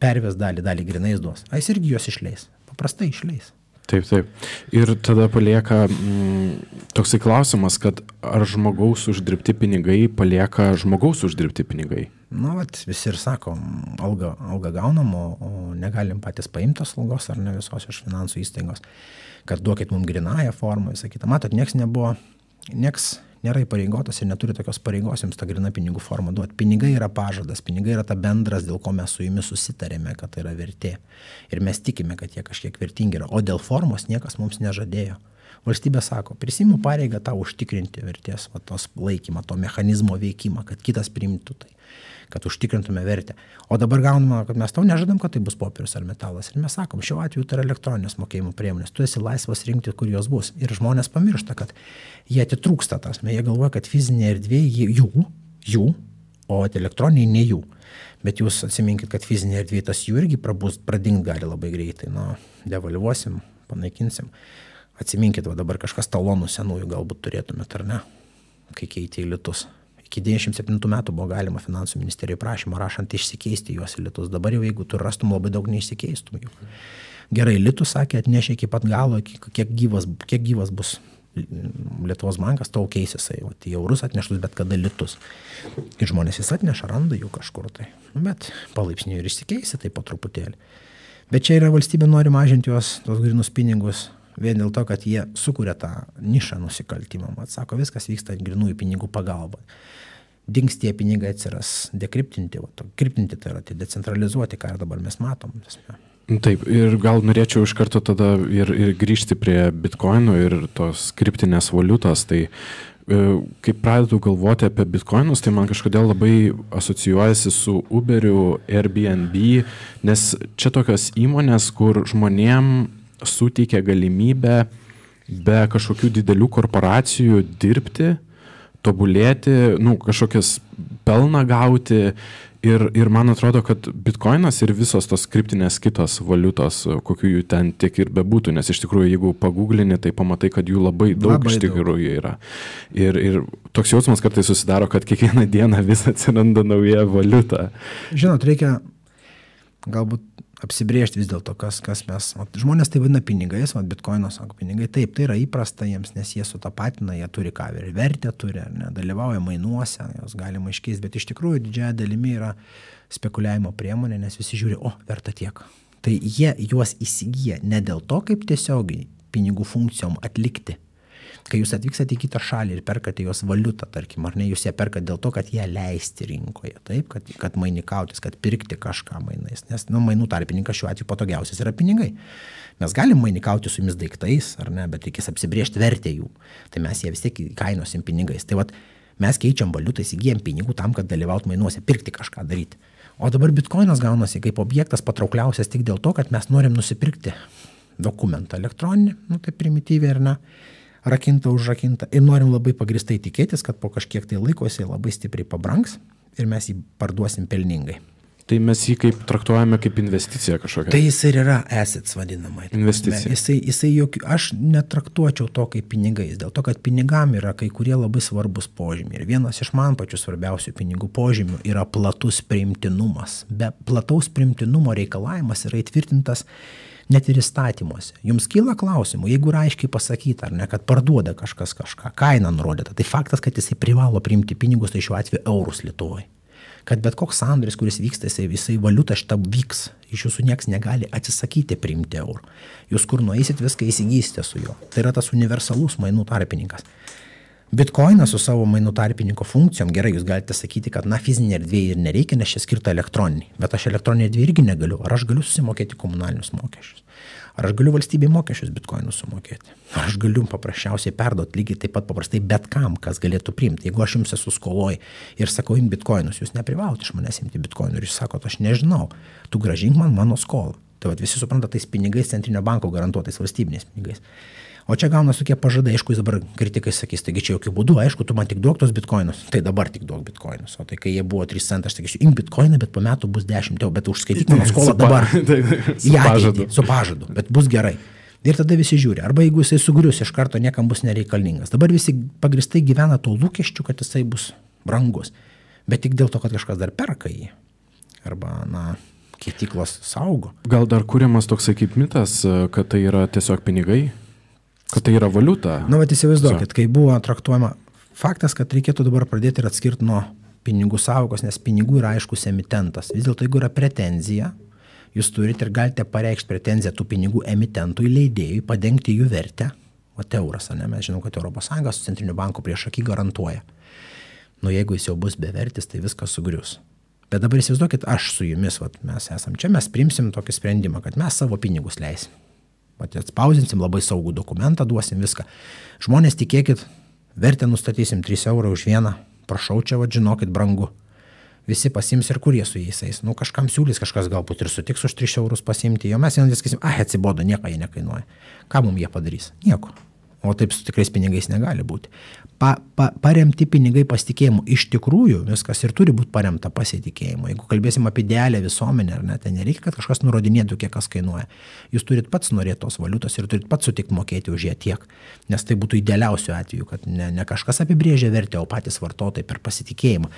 Perves dalį grinais duos. A jis irgi juos išleis. Paprastai išleis. Taip. Ir tada palieka toksai klausimas, kad ar žmogaus uždirbti pinigai palieka žmogaus uždirbti pinigai? Visi ir sako, algą gaunam, o negalim patys paimti tos algos ar ne visos iš finansų įstaigos, kad duokit mums grinąją formą, visą kitą. Matot, nieks nėra įpareigotas ir neturi tokios pareigos jums tą gryną pinigų formą duoti. Pinigai yra pažadas, pinigai yra ta bendras, dėl ko mes su jumis susitarėme, kad tai yra vertė. Ir mes tikime, kad jie kažkiek vertingi yra. O dėl formos niekas mums nežadėjo. Valstybė sako, prisiimu pareigą tau užtikrinti vertės, tos laikymą, to mechanizmo veikimą, kad kitas priimtų tai, kad užtikrintume vertę. O dabar gauname, kad mes tau nežadam, kad tai bus popierius ar metalas. Ir mes sakom, šiuo atveju tai yra elektroninės mokėjimo priemonės. Tu esi laisvas rinkti, kur jos bus. Ir žmonės pamiršta, kad jie atitrūksta tas. Jie galvoja, kad fizinė erdvė jų, o elektroniniai ne jų. Bet jūs atsiminkit, kad fizinė erdvė tas jų irgi pradingt gali labai greitai. Devalvuosim, panaikinsim. Atsiminkit, dabar kažkas talonų senųjų galbūt turėtumėt, ar ne, kai keitė į litus. Iki 97 metų buvo galima finansų ministerijai prašymą rašant išsikeisti juos į litus. Dabar jau jeigu tu rastum labai daug neišsikeistum jų. Gerai, litus sakė, atnešė iki pat galo, kiek gyvas bus Lietuvos bankas, tol keisis į eurus atneštus, bet kada litus. Ir žmonės vis atneša, randa jų kažkur tai. Bet palaipsniui ir išsikeisi tai po truputėlį. Bet čia yra valstybė nori mažinti tos grynus pinigus vien dėl to, kad jie sukuria tą nišą nusikaltimą. Sako, viskas vyksta grynųjų pinigų pagalba. Dings tie pinigai atsiras dekriptinti, kriptinti tai yra, tai decentralizuoti, ką ir dabar mes matom. Taip, ir gal norėčiau iš karto tada ir grįžti prie bitkoinų ir tos kriptinės valiutos. Tai kai pradedu galvoti apie bitkoinus, tai man kažkodėl labai asocijuojasi su Uberiu, Airbnb, nes čia tokios įmonės, kur žmonėm suteikia galimybę be kažkokių didelių korporacijų dirbti, tobulėti, kažkokias pelną gauti ir man atrodo, kad bitkoinas ir visos tos kriptinės kitos valiutos, kokių jų ten tiek ir bebūtų, nes iš tikrųjų, jeigu pagūglini, tai pamatai, kad jų labai daug iš tikrųjų yra. Ir toks jausmas kartais susidaro, kad kiekvieną dieną vis atsiranda nauja valiuta. Žinot, reikia galbūt apsibrėžti vis dėlto, kas mes. Žmonės tai vadina pinigais, bitkoinas sako pinigai. Taip, tai yra įprasta jiems, nes jie sutapatina, jie turi ką vertę turi, dalyvauja mainuose, jos galima iškeisti, bet iš tikrųjų didžiąja dalimi yra spekuliavimo priemonė, nes visi žiūri, verta tiek. Tai jie juos įsigyja ne dėl to, kaip tiesiogiai pinigų funkcijom atlikti. Kai jūs atvykstate į kitą šalį ir perkate jos valiutą, tarkim, ar ne, jūs ją perkate dėl to, kad ją leisti rinkoje, taip, kad mainikautis, kad pirkti kažką mainais, nes mainų tarpininkas šiuo atveju patogiausias yra pinigai. Mes galim mainikauti su jumis daiktais, ar ne, bet reikės apsibrėžti vertę jų, tai mes ją vis tiek kainosim pinigais. Tai mes keičiam valiutą, įsigyjam pinigų tam, kad dalyvaut mainuose, pirkti kažką daryti. O dabar bitkoinas gaunasi kaip objektas patraukliausias tik dėl to, kad mes norim nusipirkti dokumentą elektroninį, tai primityviai, ar ne, rakinta, užrakinta ir norim labai pagristai tikėtis, kad po kažkiek tai laiko jisai labai stipriai pabrangs ir mes jį parduosim pelningai. Tai mes jį kaip traktuojame kaip investiciją kažkokią? Tai jis ir yra assets vadinamai. Investicija. Aš netraktuočiau to kaip pinigais, dėl to, kad pinigam yra kai kurie labai svarbus požymiai. Ir vienas iš man pačių svarbiausių pinigų požymių yra platus priimtinumas. Be plataus priimtinumo reikalavimas yra įtvirtintas net ir įstatymuose. Jums kyla klausimų, jeigu yra aiškiai pasakyta, ar ne, kad parduoda kažkas kažką, kaina nurodyta, tai faktas, kad jisai privalo priimti pinigus, tai šiuo atveju eurus Lietuvoje. Kad bet koks sandoris, kuris vyksta, jisai valiuta šitą vyks, iš jūsų nieks negali atsisakyti priimti eurų. Jūs kur nueisit, viską įsigysite su juo. Tai yra tas universalus mainų tarpininkas. Bitcoinas su savo mainų tarpininko funkcijom, gerai, jūs galite sakyti, kad fizinė erdvė ir nereikia, nes čia skirta elektroniniai. Bet aš elektroninė erdvė irgi negaliu. Ar aš galiu susimokėti komunalinius mokesčius? Ar aš galiu valstybei mokesčius bitkoinus sumokėti? Ar aš galiu paprasčiausiai perduoti lygiai taip pat paprastai bet kam, kas galėtų priimti? Jeigu aš jums esu skoloj ir sakau, imti bitkoinus, jūs neprivalote iš manęs imti bitkoinų ir jūs sakote, aš nežinau, tu grąžink man mano skolą. Tai visi supranta tais pinigais centrinio banko garantuotais valstybiniais pinigais. O čia gaunasi tokie pažadai, aišku, jis dabar kritikai sakys, taigi čia jokių būdų, aišku, tu man tik duok tos bitkoinus, tai dabar tik duok bitkoinus. O tai kai jie buvo 3 centai, aš sakysiu, imk bitkoiną, bet po metų bus 10 eurų, bet užskaityk mano skolą dabar. Su pažadu, bet bus gerai. Ir tada visi žiūri, arba jeigu jisai sugrius, iš karto niekam bus nereikalingas. Dabar visi pagristai gyvena to lūkesčiu, kad jisai bus brangus, bet tik dėl to, kad kažkas dar perka jį. Arba, keityklos saugo. Gal dar kuriamas toksai kaip mitas, kad tai yra tiesiog pinigai? Kad tai yra valiuta. Įsivaizduokit, kai buvo traktuojama faktas, kad reikėtų dabar pradėti ir atskirti nuo pinigų sąvokos, nes pinigų yra aiškus emitentas. Vis dėlto, jeigu yra pretenzija, jūs turite ir galite pareikšti pretenziją tų pinigų emitentui, leidėjui, padengti jų vertę. Euras, mes žinom, kad ES su centriniu banku prieš akį garantuoja. Jeigu jis jau bus bevertis, tai viskas sugrius. Bet dabar įsivaizduokit, aš su jumis, mes esam čia, mes priimsim tokį sprendimą, kad mes savo pinigus leisim. Atspausinsim, labai saugų dokumentą duosim, viską. Žmonės, tikėkit, vertę nustatysim 3 eurų už vieną, prašau, čia žinokit, brangu. Visi pasims ir kur jie su jais eis. Kažkam siūlys, kažkas galbūt ir sutiks už 3 eurus pasimti, jo mes vieną sakysim, atsibodo, nieko jie nekainuoja. Ką mums jie padarys? Nieko. O taip su tikrais pinigais negali būti. Paremti pinigai pasitikėjimu. Iš tikrųjų, viskas ir turi būti paremta pasitikėjimu. Jeigu kalbėsim apie idealią visuomenę, ar ne, tai nereikia, kad kažkas nurodinėtų, kiek kas kainuoja. Jūs turit pats norėti tos valiutos ir turit pats sutikti mokėti už ją tiek. Nes tai būtų idealiausiu atveju, kad ne kažkas apibrėžia vertę, o patys vartotojai per pasitikėjimą.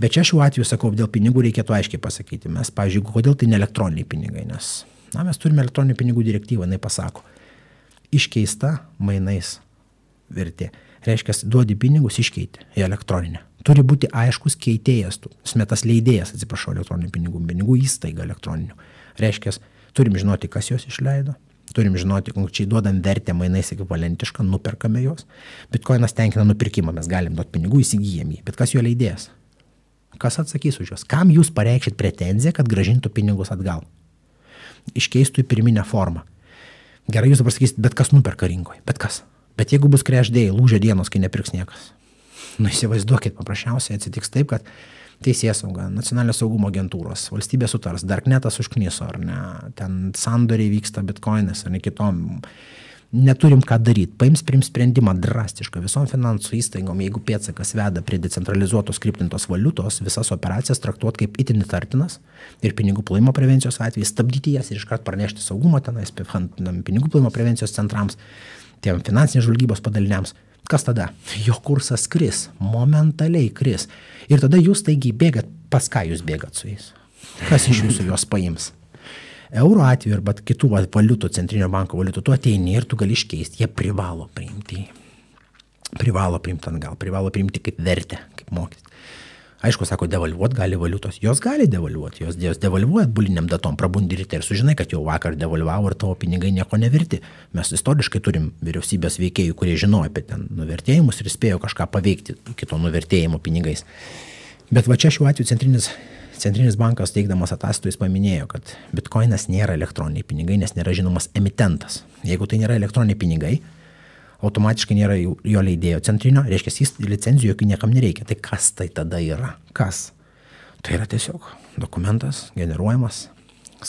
Bet čia šiuo atveju, sakau, dėl pinigų reikėtų aiškiai pasakyti. Mes, pavyzdžiui, kodėl tai ne elektroniniai pinigai, nes mes turime elektroninių pinigų direktyvą, jinai pasako. Iškeista mainais vertė. Reiškia, duodi pinigus, iškeiti į elektroninę. Turi būti aiškus keitėjas, smetas leidėjas, elektroninių pinigų įstaiga elektroninių. Reiškia, turim žinoti, kas jos išleido, turim žinoti, konkrečiai duodam vertę mainais ekvivalentišką, nuperkame jos. Bitcoinas tenkina nupirkimą, mes galim duoti pinigų, įsigijam jį, bet kas jo leidėjas? Kas atsakys už juos? Kam jūs pareikšit pretenziją, kad grąžintų pinigus atgal? Iškeistų į pirminę formą. Gerai, jūs dabar sakysit, bet kas nuperka rinkoje, bet kas? Bet jeigu bus crash day, lūžio dienos, kai nepirks niekas. Įsivaizduokit, paprasčiausiai atsitiks taip, kad Teisėsauga, Nacionalinio saugumo agentūros, valstybė sutars, Darknetas užkniso, ar ne, ten sandoriai vyksta bitcoinas, ar ne kitom. Neturim ką daryti. Priims sprendimą drastišką visom finansų įstaigom, jeigu pėdsakas veda prie decentralizuotos kriptintos valiutos, visas operacijas traktuoti kaip itin įtartinas ir pinigų plovimo prevencijos atvejais, stabdyti jas ir iškart pranešti saugumo tenais, pinigų plovimo prevencijos centrams, tiem finansinės žvalgybos padaliniams. Kas tada? Jo kursas kris, momentaliai kris. Ir tada jūs taigi bėgat, pas ką jūs bėgat su jais? Kas iš jūsų juos paims? Euro atveju arba kitų valiutų, centrinio banko valiutų, tu ateini ir tu gali iškeisti. Jie privalo priimti atgal, privalo priimti kaip vertę, kaip mokestį. Aišku, sako, devalvuot gali valiutos. Jos gali devalvuoti, jos devalvuoja buliniam datom, prabundi ryte ir sužinai, kad jau vakar devalvavo ir tavo pinigai nieko neverti. Mes istoriškai turim vyriausybės veikėjų, kurie žinojo apie ten nuvertėjimus ir spėjo kažką paveikti kito nuvertėjimo pinigais. Bet va čia šiuo atveju Centrinis bankas teikdamas ataskaitų jis paminėjo, kad bitcoinas nėra elektroniniai pinigai, nes nėra žinomas emitentas. Jeigu tai nėra elektroniniai pinigai, automatiškai nėra jo leidėjo centrinio, reiškia, jis licenzijų jokių niekam nereikia. Tai kas tai tada yra? Kas? Tai yra tiesiog dokumentas generuojamas,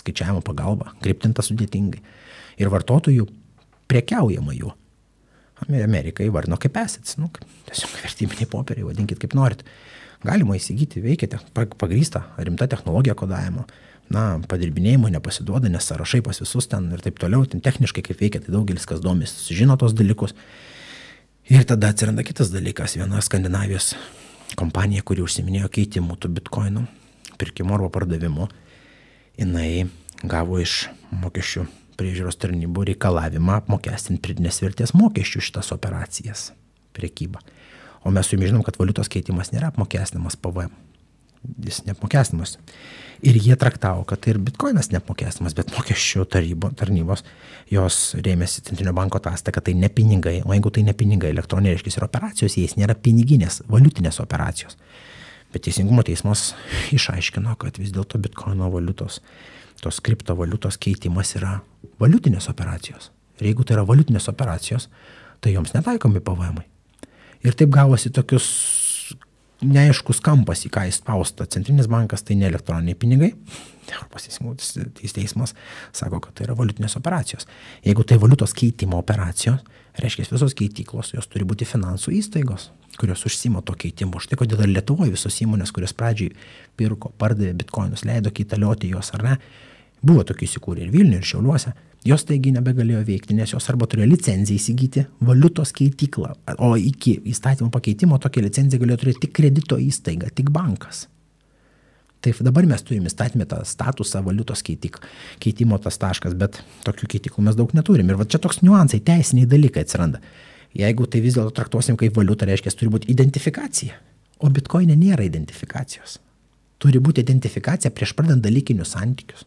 skaičiavimo pagalba, kriptintas sudėtingai. Ir vartotojų prekiaujama juo. Amerikai įvardino kaip assets, tiesiog vertybiniai popieriai, vadinkit kaip norit. Galima įsigyti, veikia pagrįsta rimta technologija kodavimo, padirbinėjimo nepasiduoda, nes sąrašai pas visus ten ir taip toliau, ten techniškai kaip veikia, tai daugelis kas domės, žino tos dalykus. Ir tada atsiranda kitas dalykas, viena Skandinavijos kompanija, kuri užsiminėjo keitimų tų bitcoinų, pirkimo arba pardavimo, jinai gavo iš mokesčių priežiūros tarnybų reikalavimą apmokestinti pridėtinės vertės mokesčių šitas operacijas, prekybą. O mes su jumis žinom, kad valiutos keitimas nėra apmokestinamas PVM. Jis neapmokestinamas. Ir jie traktavo, kad tai ir bitcoinas neapmokestinamas, bet mokesčių tarnybos, jos rėmėsi Centrinio banko ataskaita, kad tai ne pinigai, o jeigu tai ne pinigai, elektroniniai reiškia ir operacijos, jais nėra piniginės, valiutinės operacijos. Bet Teisingumo teismas išaiškino, kad vis dėlto bitcoino valiutos, tos kriptovaliutos keitimas yra valiutinės operacijos. Ir jeigu tai yra valiutinės operacijos, tai joms netaikomi PVM-ai. Ir taip gavosi tokius neaiškus kampas, į ką įspausta. Centrinis bankas tai ne elektroniniai pinigai. Europos teismas sako, kad tai yra valiutinės operacijos. Jeigu tai valiutos keitimo operacijos, reiškia visos keityklos, jos turi būti finansų įstaigos, kurios užsima to keitimo. Štai kodėl ir Lietuvoje visos įmonės, kurios pradžiai pirko, pardavė bitcoinus, leido kaitalioti jos ar ne, buvo tokių įsikūrę ir Vilniuje, ir Šiauliuose. Jos taigi nebegalėjo veikti, nes jos arba turėjo licenciją įsigyti valiutos keityklą, o iki įstatymo pakeitimo tokią licenciją galėjo turėti tik kredito įstaiga, tik bankas. Tai dabar mes turime įstatymę tą statusą valiutos keitimo tas taškas, bet tokių keitiklų mes daug neturim. Ir va čia toks niuansai, teisiniai dalykai atsiranda. Jeigu tai vis dėlto traktuosim kaip valiutą, reiškia, turi būti identifikacija. O bitcoine nėra identifikacijos. Turi būti identifikacija prieš pradant dalykinius santykius.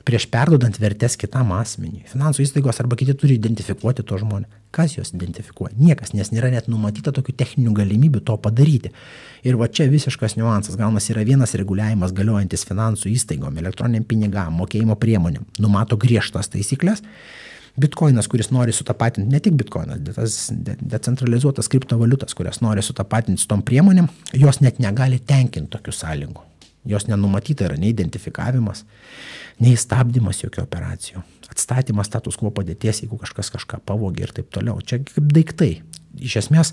Prieš perdodant vertės kitam asmeniui. Finansų įstaigos arba kiti turi identifikuoti to žmonės. Kas juos identifikuoja? Niekas, nes nėra net numatyta tokių techninių galimybių to padaryti. Ir va čia visiškas niuansas. Gaunas yra vienas reguliavimas galiojantis finansų įstaigom, elektroniniam pinigam, mokėjimo priemonėm. Numato griežtas taisyklės. Bitcoinas, kuris nori sutapatinti, ne tik bitcoinas, bet tas decentralizuotas kriptovaliutas, kurias nori sutapatinti su tom priemonėm, jos net negali tenkinti tokių sąlygų. Jos nenumatyta yra nei identifikavimas, nei stabdymas jokių operacijų. Atstatymas status quo padėties, jeigu kažkas kažką pavogė ir taip toliau. Čia kaip daiktai. Iš esmės,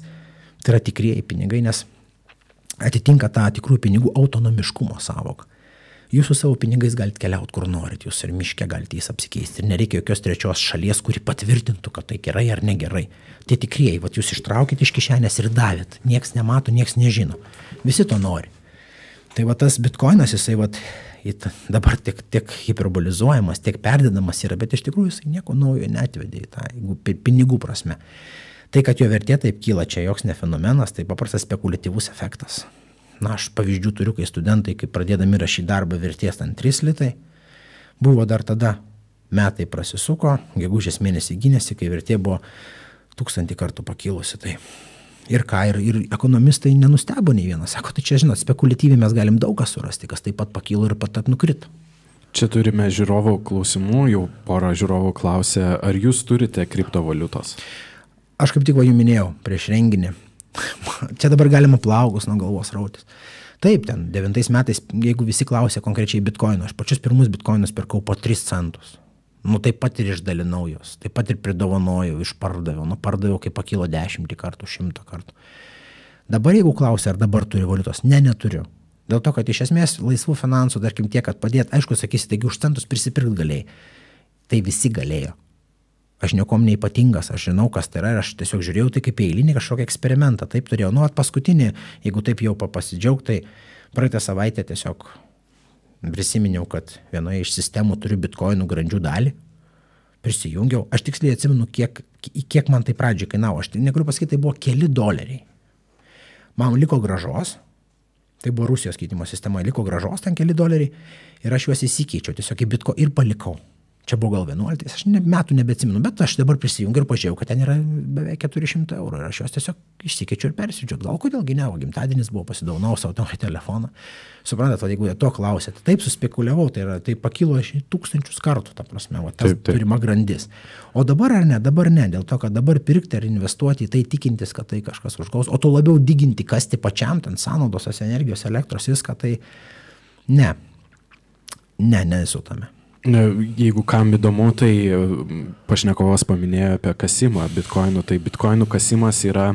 tai yra tikrieji pinigai, nes atitinka tą tikrųjų pinigų autonomiškumo sąvoką. Jūs su savo pinigais galite keliauti, kur norit, jūs ir miške galite jais apsikeisti. Ir nereikia jokios trečios šalies, kuri patvirtintų, kad tai gerai ar negerai. Tie tikrieji, vat jūs ištraukit iš kišenės ir davėt. Nieks nemato, nieks nežino. Visi to nori. Tai va tas bitkoinas, jisai vat, dabar tiek hiperbolizuojamas, tiek perdedamas yra, bet iš tikrųjų jisai nieko naujo neatvedė į tą, jeigu pinigų prasme. Tai, kad jo vertė taip kyla, čia joks ne fenomenas, tai paprastas spekuliatyvus efektas. Na, aš pavyzdžių turiu, kai studentai, kai pradėdami rašyti darbą vertės ant 3 litai, buvo dar tada metai prasisuko, gegužės mėnesį gynėsi, kai vertė buvo 1000 kartų pakilusi. Tai. Ir ką, ir ekonomistai nenustebo nei vienas. Sako, tai čia, žinot, spekuliatyviai mes galim daug ką surasti, kas taip pat pakilo ir pat nukrito. Čia turime žiūrovų klausimų, jau porą žiūrovų klausė, ar jūs turite kriptovaliutos? Aš kaip tik jums minėjau prieš renginį. Čia dabar galima plaukus nuo galvos rautis. Taip, ten 9 metais, jeigu visi klausė konkrečiai bitkoino, aš pačius pirmus bitkoinus pirkau po 3 centus. Nu, taip pat ir išdalinau jos, taip pat ir pridovanojau, išpardaviau. Nu, pardaviau, kai pakilo 10 kartų, 100 kartų. Dabar jeigu klausia, ar dabar turi valiutos, neturiu. Dėl to, kad iš esmės laisvų finansų, tarkim tiek, kad padėt, aišku, sakysi, taigi už centus prisipirkt galėjai. Tai visi galėjo. Aš niekom neipatingas, aš žinau, kas tai yra, ir aš tiesiog žiūrėjau tai kaip eilinį kažkokį eksperimentą. Taip turėjau. Nu, paskutinį, jeigu taip jau pasidžiaugti, tai praeitą savaitę tiesiog prisiminiau, kad vienoje iš sistemų turiu bitkoinų grandžių dalį. Prisijungiau. Aš tiksliai atsimenu, kiek man tai pradžiai kainavo. Aš negaliu pasakyti, tai buvo keli $. Man liko grąžos. Tai buvo Rusijos keitimo sistema. Liko grąžos ten keli $. Ir aš juos įsikeičiau tiesiog į bitko ir palikau. Čia buvo gal 11, aš metų nebeatsimenu, bet aš dabar prisijungiu ir pažiūrėjau, kad ten yra beveik 400 eurų. Ir aš juos tiesiog išsikeičiu ir persiudžiu. Gal kodėlgi ne, o gimtadienis buvo, pasidovanau savo telefoną. Suprantat, jeigu to klausėte, taip suspekuliavau, tai pakilo 1000 kartų, ta prasme, tas turima grandis. O dabar ar ne, dabar ne, dėl to, kad dabar pirkti ar investuoti į tai tikintis, kad tai kažkas užgaus, o to labiau diginti, kasti pačiam, ten sąnaudos, energijos, elektros, viską, tai nesu tame. Jeigu kam įdomu, tai pašnekovas paminėjo apie kasimą bitkoinų. Tai bitkoinų kasimas yra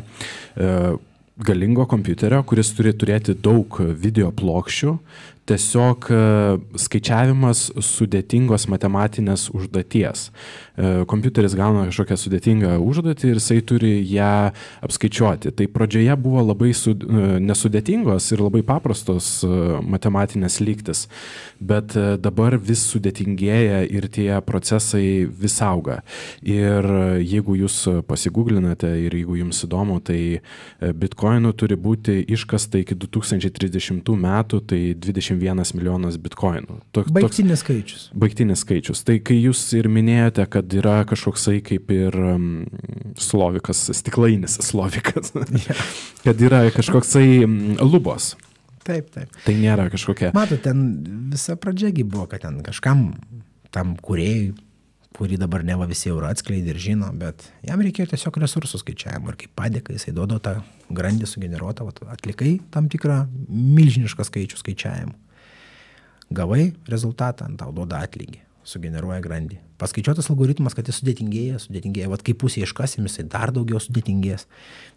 galingo kompiuterio, kuris turi turėti daug video plokščių. Tiesiog skaičiavimas sudėtingos matematinės užduoties. Kompiuteris gauna kažkokią sudėtingą užduotį ir jisai turi ją apskaičiuoti. Tai pradžioje buvo labai nesudėtingos ir labai paprastos matematinės lygtis, bet dabar vis sudėtingėja ir tie procesai vis auga. Ir jeigu jūs pasigūglinate ir jeigu jums įdomu, tai bitkoinų turi būti iškasta iki 2030 metų, tai 21 milijonas bitkoinų. Baigtinis skaičius. Baigtinis skaičius. Tai kai jūs ir minėjote, kad yra kažkoksai kaip ir slovikas, stiklainis slovikas, kad yra kažkoksai lubos. Taip. Tai nėra kažkokia. Matot, ten visa pradžiagi buvo, kad ten kažkam tam kūrėjui, kurį dabar neva visi jau atskleidė ir žino, bet jam reikėjo tiesiog resursų skaičiavimo ir kaip padėka jisai duodo tą grandį sugeneruotą, atlikai tam tikrą milžinišką skaičių skaičiavimų. Gavai rezultatą, tau duoda atlygį, sugeneruoja grandį. Paskaičiuotas algoritmas, kad jis sudėtingėja. Vat kai pusė iškasim, jisai dar daugiau sudėtingės.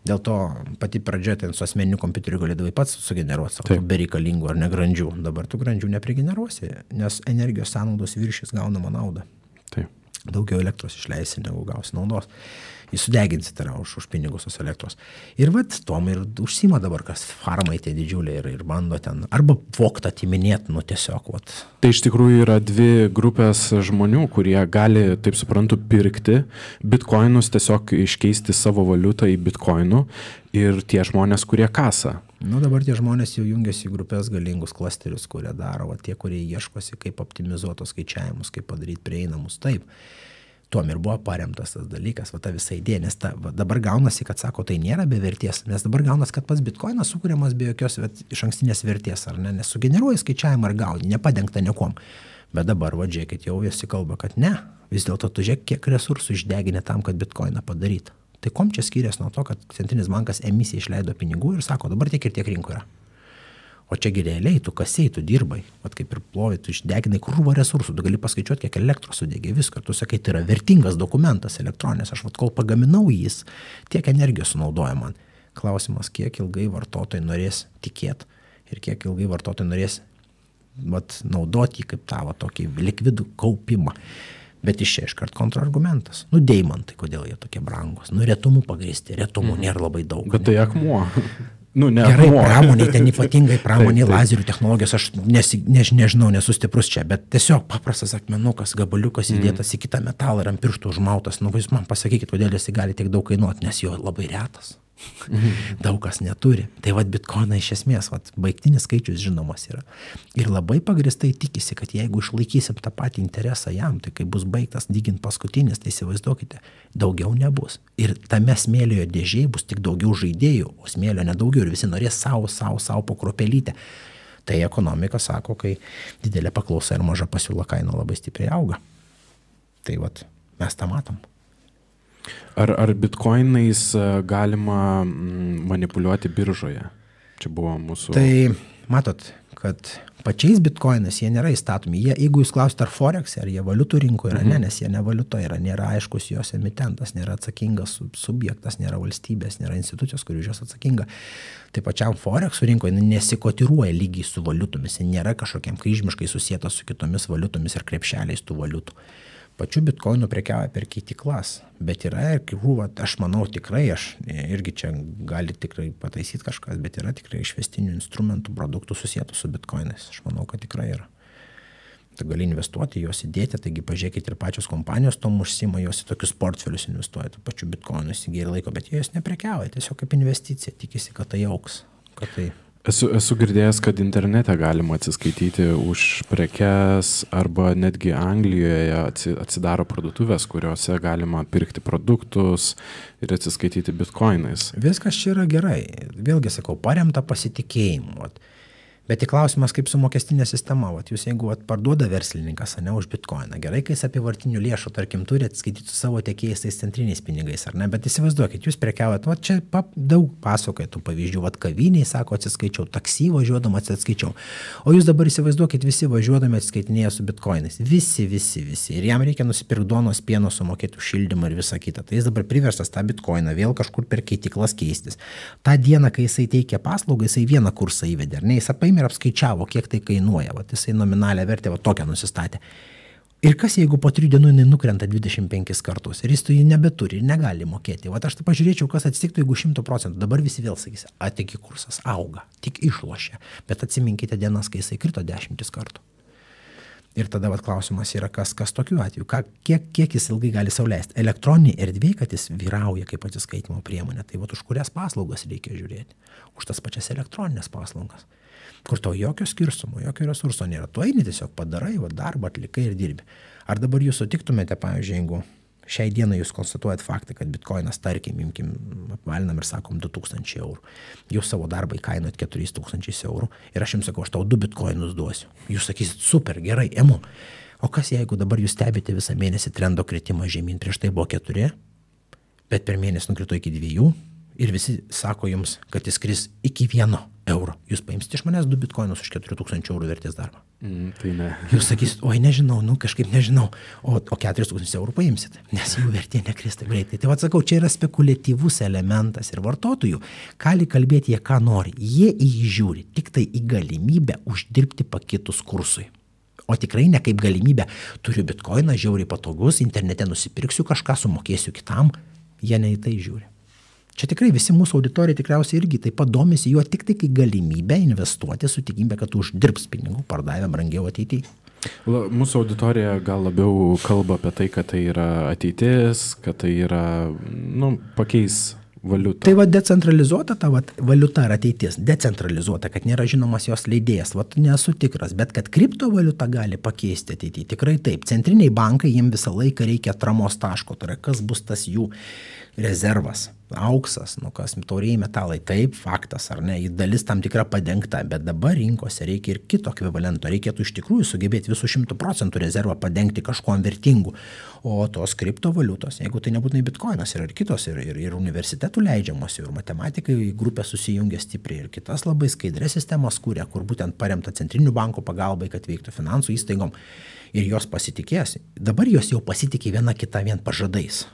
Dėl to pati pradžia ten su asmeniniu kompiuteriu galėdavai pats sugeneruoti savo bereikalingų ar negrandžių. Dabar tu grandžių neprigeneruosi, nes energijos sąnaudos viršys gaunama naudą. Taip. Daugiau elektros išleisi, negu gausi naudos. Jis sudeginsi tai už pinigus tos elektros. Ir vat tom ir užsima dabar, kas farmai tie didžiuliai ir bando ten arba voktą atiminėti, nu tiesiog. Vat. Tai iš tikrųjų yra dvi grupės žmonių, kurie gali, taip suprantu, pirkti bitkoinus, tiesiog iškeisti savo valiutą į bitkoinų ir tie žmonės, kurie kasa. Nu dabar tie žmonės jau jungiasi į grupės galingus klasterius, kurie daro, tie, kurie ieškosi, kaip optimizuotos skaičiavimus, kaip padaryti prieinamus. Taip, Tuom ir buvo paremtas tas dalykas, va ta visa idėja, nes dabar gaunasi, kad sako, tai nėra be vertės, nes dabar gaunasi, kad pats bitkoinas sukūriamas be jokios iš ankstinės vertės, ar ne, nes sugeneruoja skaičiavimą ir gauni, nepadengta niekuom. Bet dabar, va, žiūrėkit, jau visi kalba, kad ne, vis dėlto tu žiūrėk, kiek resursų išdeginė tam, kad bitkoiną padarytų. Tai kom čia skiriasi nuo to, kad centrinis bankas emisiją išleido pinigų ir sako, dabar tiek ir tiek rinko yra. O čia realiai, tu kasėjai, tu dirbai, vat kaip ir plovai, tu išdeginai krūvą resursų, tu gali paskaičiuoti, kiek elektros sudegė viską, tu sakai, tai yra vertingas dokumentas elektroninės, aš vat kol pagaminau jis, tiek energijos sunaudoja man. Klausimas, kiek ilgai vartotojai norės tikėti ir kiek ilgai vartotojai norės vat, naudoti kaip tą tokį likvidų kaupimą. Bet iš čia iškart kontrargumentas. Deimantai, kodėl jie tokie brangus? Retumų pagrįsti, retumų nėra labai daug. Bet tai akmuo. Gerai, pramoniai, ten ypatingai pramoniai, lazerių technologijos, aš nežinau, nesu stiprus čia, bet tiesiog paprastas akmenukas, gabaliukas įdėtas į kitą metalą ir ant pirštų užmautas. Jūs man pasakykit, kodėl jis gali tiek daug kainuoti, nes jo labai retas. Daug kas neturi. Tai vat bitkoiną iš esmės, baigtinis skaičius žinomas yra. Ir labai pagristai tikisi, kad jeigu išlaikysim tą patį interesą jam, tai kai bus baigtas dygint paskutinis, tai įsivaizduokite, daugiau nebus. Ir tame smėlio dėžėje bus tik daugiau žaidėjų, o smėlio nedaugiau ir visi norės savo po kruopelytę. Tai ekonomika sako, kai didelė paklausa ir maža pasiūla kaina labai stipriai auga. Tai vat mes tą matom. Ar bitkoinais galima manipuliuoti biržoje? Čia buvo mūsų... Tai matot, kad pačiais bitkoinais jie nėra įstatomi. Jeigu jūs klausite, ar forex, ar jie valiutų rinkoje yra, nes jie ne valiuta yra, nėra aiškus jos emitentas, nėra atsakingas subjektas, nėra valstybės, nėra institucijos, kuri už jos atsakinga. Tai pačiam forexų rinkoje nesikotiruoja lygiai su valiutomis, nėra kažkokiam kryžmiškai susietas su kitomis valiutomis ir krepšeliais tų valiutų. Pačių bitkoinų prekiauja per keitiklas, bet yra ir krūva, aš manau tikrai, aš irgi čia gali tikrai pataisyti kažkas, bet yra tikrai išvestinių instrumentų, produktų susietų su bitkoinais. Aš manau, kad tikrai yra. Tu gali investuoti, juos įdėti, taigi pažiūrėkit ir pačios kompanijos tom užsima, jos į tokius portfelius investuoja, tų pačių bitkoinų įsigyja ir laiko, bet jie jos neprekiauja, tiesiog kaip investicija, tikisi, kad tai auks, kad tai... Esu girdėjęs, kad internete galima atsiskaityti už prekes arba netgi Anglijoje atsidaro parduotuvės, kuriuose galima pirkti produktus ir atsiskaityti bitkoinais. Viskas čia yra gerai. Vėlgi sakau, paremta pasitikėjimu. Bet tik klausimas, kaip su mokestinė sistema. Jūs jeigu parduoda verslininkas, ne, už bitkoiną, gerai, kai jis apyvartinių lėšų, tarkim, turi atskaityti su savo tiekėjais tais centriniais pinigais, ar ne, bet įsivaizduokit, jūs prekiaujat, čia daug pasakoja tų pavyzdžių, kaviniai, sako, atsiskaičiau, taksi važiuodama atsiskaičiau, o jūs dabar įsivaizduokit, visi važiuodami atsiskaitinėja su bitkoinais, visi, ir jam reikia nusipirkti duonos, pieno, sumokėti už šildymą ir visą kitą, tai jis dabar priverstas tą bitkoiną vėl kažkur per keitiklas keistis. Ta diena, kai jisai teikia paslaugą, jisai vieną kursą įvedė, ar ne, jis paėmė ir apskaičiavo, kiek tai kainuoja, jisai nominalią vertę tokią nusistatė. Ir kas, jeigu po 3 dienų jinai nukrenta 25 kartus ir jis to jį nebeturi ir negali mokėti. Aš tai pažiūrėčiau, kas atsitiktų, jeigu 100%. Dabar visi vėl sakys, tik kursas auga, tik išlošia. Bet atsiminkite dienas, kai jisai krito 10 kartų. Ir tada klausimas yra, kas tokiu atveju, kiek jis ilgai gali sau leisti. Elektroninė erdvė, kad jis vyrauja kaip atsiskaitimo priemonė, tai už kurias paslaugas reikia žiūrėti. Už tas pačias elektroninės paslaugas, kur to jokio skirstumo, jokio resurso nėra. Tu eini tiesiog padarai, darbą atlikai ir dirbi. Ar dabar jūs sutiktumėte, pavyzdžiui, jeigu šiai dienai jūs konstatuojat faktą, kad bitkoinas, tarkim, apvalinam ir sakom 2000 eurų. Jūs savo darbą įkainuojat 4000 eurų ir aš jums sakau, aš tau 2 bitkoinus duosiu. Jūs sakysit, super, gerai, emu. O kas jeigu dabar jūs stebite visą mėnesį trendo kritimą žemyn, prieš tai buvo 4, bet per mėnesį nukrito iki 2 ir visi sako jums, kad jis kris iki 1 euro. Jūs paimsite iš manęs 2 bitkoinus už 4000 eurų vertės darbą. Tai ne. Jūs sakysit, oi nežinau, kažkaip nežinau, o 4000 eurų paimsit, nes jų vertė nekris taip greitai. Tai atsakau, čia yra spekuliatyvus elementas ir vartotojų gali kalbėti jie ką nori. Jie įžiūri tik tai į galimybę uždirbti pakitus kursui. O tikrai ne kaip galimybę, turiu bitkoiną, žiauriai patogus, internete nusipirksiu kažką, sumokėsiu kitam, jie ne į tai žiūri. Čia tikrai visi mūsų auditorija tikriausiai irgi taip pat domisi juo tik tai kaip galimybę investuoti su tikimybė, kad uždirbs pinigų, pardavę brangiau ateityje. Mūsų auditorija gal labiau kalba apie tai, kad tai yra ateitis, kad tai yra, pakeis valiutą. Tai decentralizuota ta valiuta yra ateitis, decentralizuota, kad nėra žinomas jos leidėjas, nesu tikras, bet kad kriptovaliuta gali pakeisti ateityje, tikrai taip. Centriniai bankai, jiems visą laiką reikia atramos taško, tai yra kas bus tas jų rezervas, auksas, kas taurieji metalai, taip, faktas ar ne, dalis tam tikra padengta, bet dabar rinkose reikia ir kito ekvivalento, reikėtų iš tikrųjų sugebėti visų 100% rezervą padengti kažkuom vertingu, o tos kriptovaliutos, jeigu tai nebūtinai bitkoinas, yra ir kitos, ir universitetų leidžiamos, ir matematikai grupė susijungia stipriai, ir kitas labai skaidrės sistemas kūrė, kur būtent paremta centrinių bankų pagalbai, kad veiktų finansų įstaigom, ir jos pasitikės. Dabar jos jau pasitikė viena kita vien pažadais.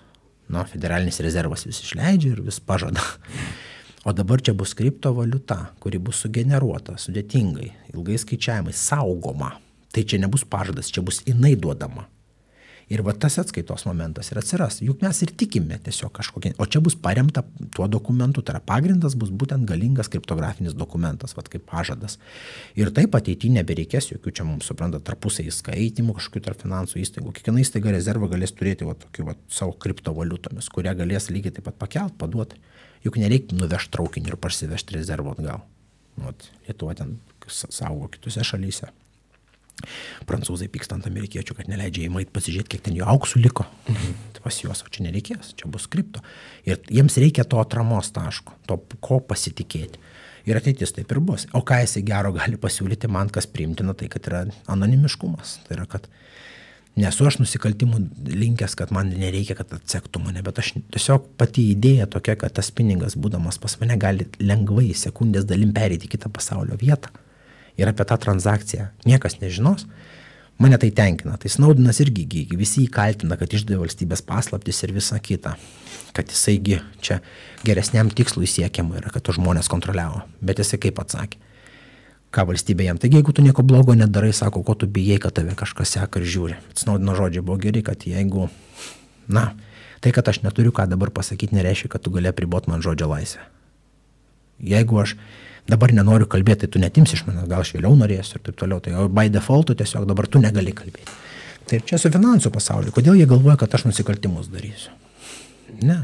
Federalinis rezervas vis išleidžia ir vis pažada. O dabar čia bus kriptovaliuta, kuri bus sugeneruota sudėtingai, ilgai skaičiavimai, saugoma. Tai čia nebus pažadas, čia bus jinai duodama. Ir tas atskaitos momentas ir atsiras. Juk mes ir tikime tiesiog kažkokie. O čia bus paremta tuo dokumentu, tai yra pagrindas bus būtent galingas kriptografinis dokumentas, kaip pažadas. Ir taip ateityje nebereikės jokių čia mums supranta tarpusai įskaitimų, kažkokių tarp finansų įstaigų. Kiekviena įstaiga rezervą galės turėti tokių savo kriptovaliutomis, kurią galės lygiai taip pat pakelt, paduoti. Juk nereikia nuvežti traukinį ir parsivežti rezervą atgal. Lietuva ten saugo kitose šalyse. Prancūzai pyksta ant amerikiečių, kad neleidžia įmait pasižiūrėti, kiek ten jų auksų liko. Tai pas juos, o čia nereikės, čia bus kripto. Ir jiems reikia to atramos taško, to ko pasitikėti. Ir ateitis taip ir bus. O ką jisai gero gali pasiūlyti man, kas priimtina, tai kad yra anonimiškumas. Tai yra, kad nesu aš nusikaltimų linkęs, kad man nereikia, kad atsektų mane, bet aš tiesiog pati idėja tokia, kad tas pinigas, būdamas pas mane, gali lengvai sekundės dalim pereiti į kitą pasaulio vietą. Ir apie tą transakciją niekas nežinos, mane tai tenkina. Tai Snowdenas irgi visi įkaltina, kad išdavė valstybės paslaptis ir visa kita. Kad jisaigi čia geresniam tikslui siekiama yra, kad to žmonės kontroliavo. Bet jisai kaip atsakė, ką valstybė jam. Taigi, jeigu tu nieko blogo nedarai, sako, ko tu bijai, kad tave kažkas seka ir žiūri. Snowdeno žodžiai buvo geri, kad jeigu, tai, kad aš neturiu ką dabar pasakyti, nereiškia, kad tu gali apriboti man žodžio laisvę. Jeigu aš dabar nenoriu kalbėti, tai tu netimsi iš manęs, gal aš vėliau norėsiu ir taip toliau. Tai by default tiesiog dabar tu negali kalbėti. Tai čia su finansų pasauliu. Kodėl jie galvoja, kad aš nusikaltimus darysiu? Ne.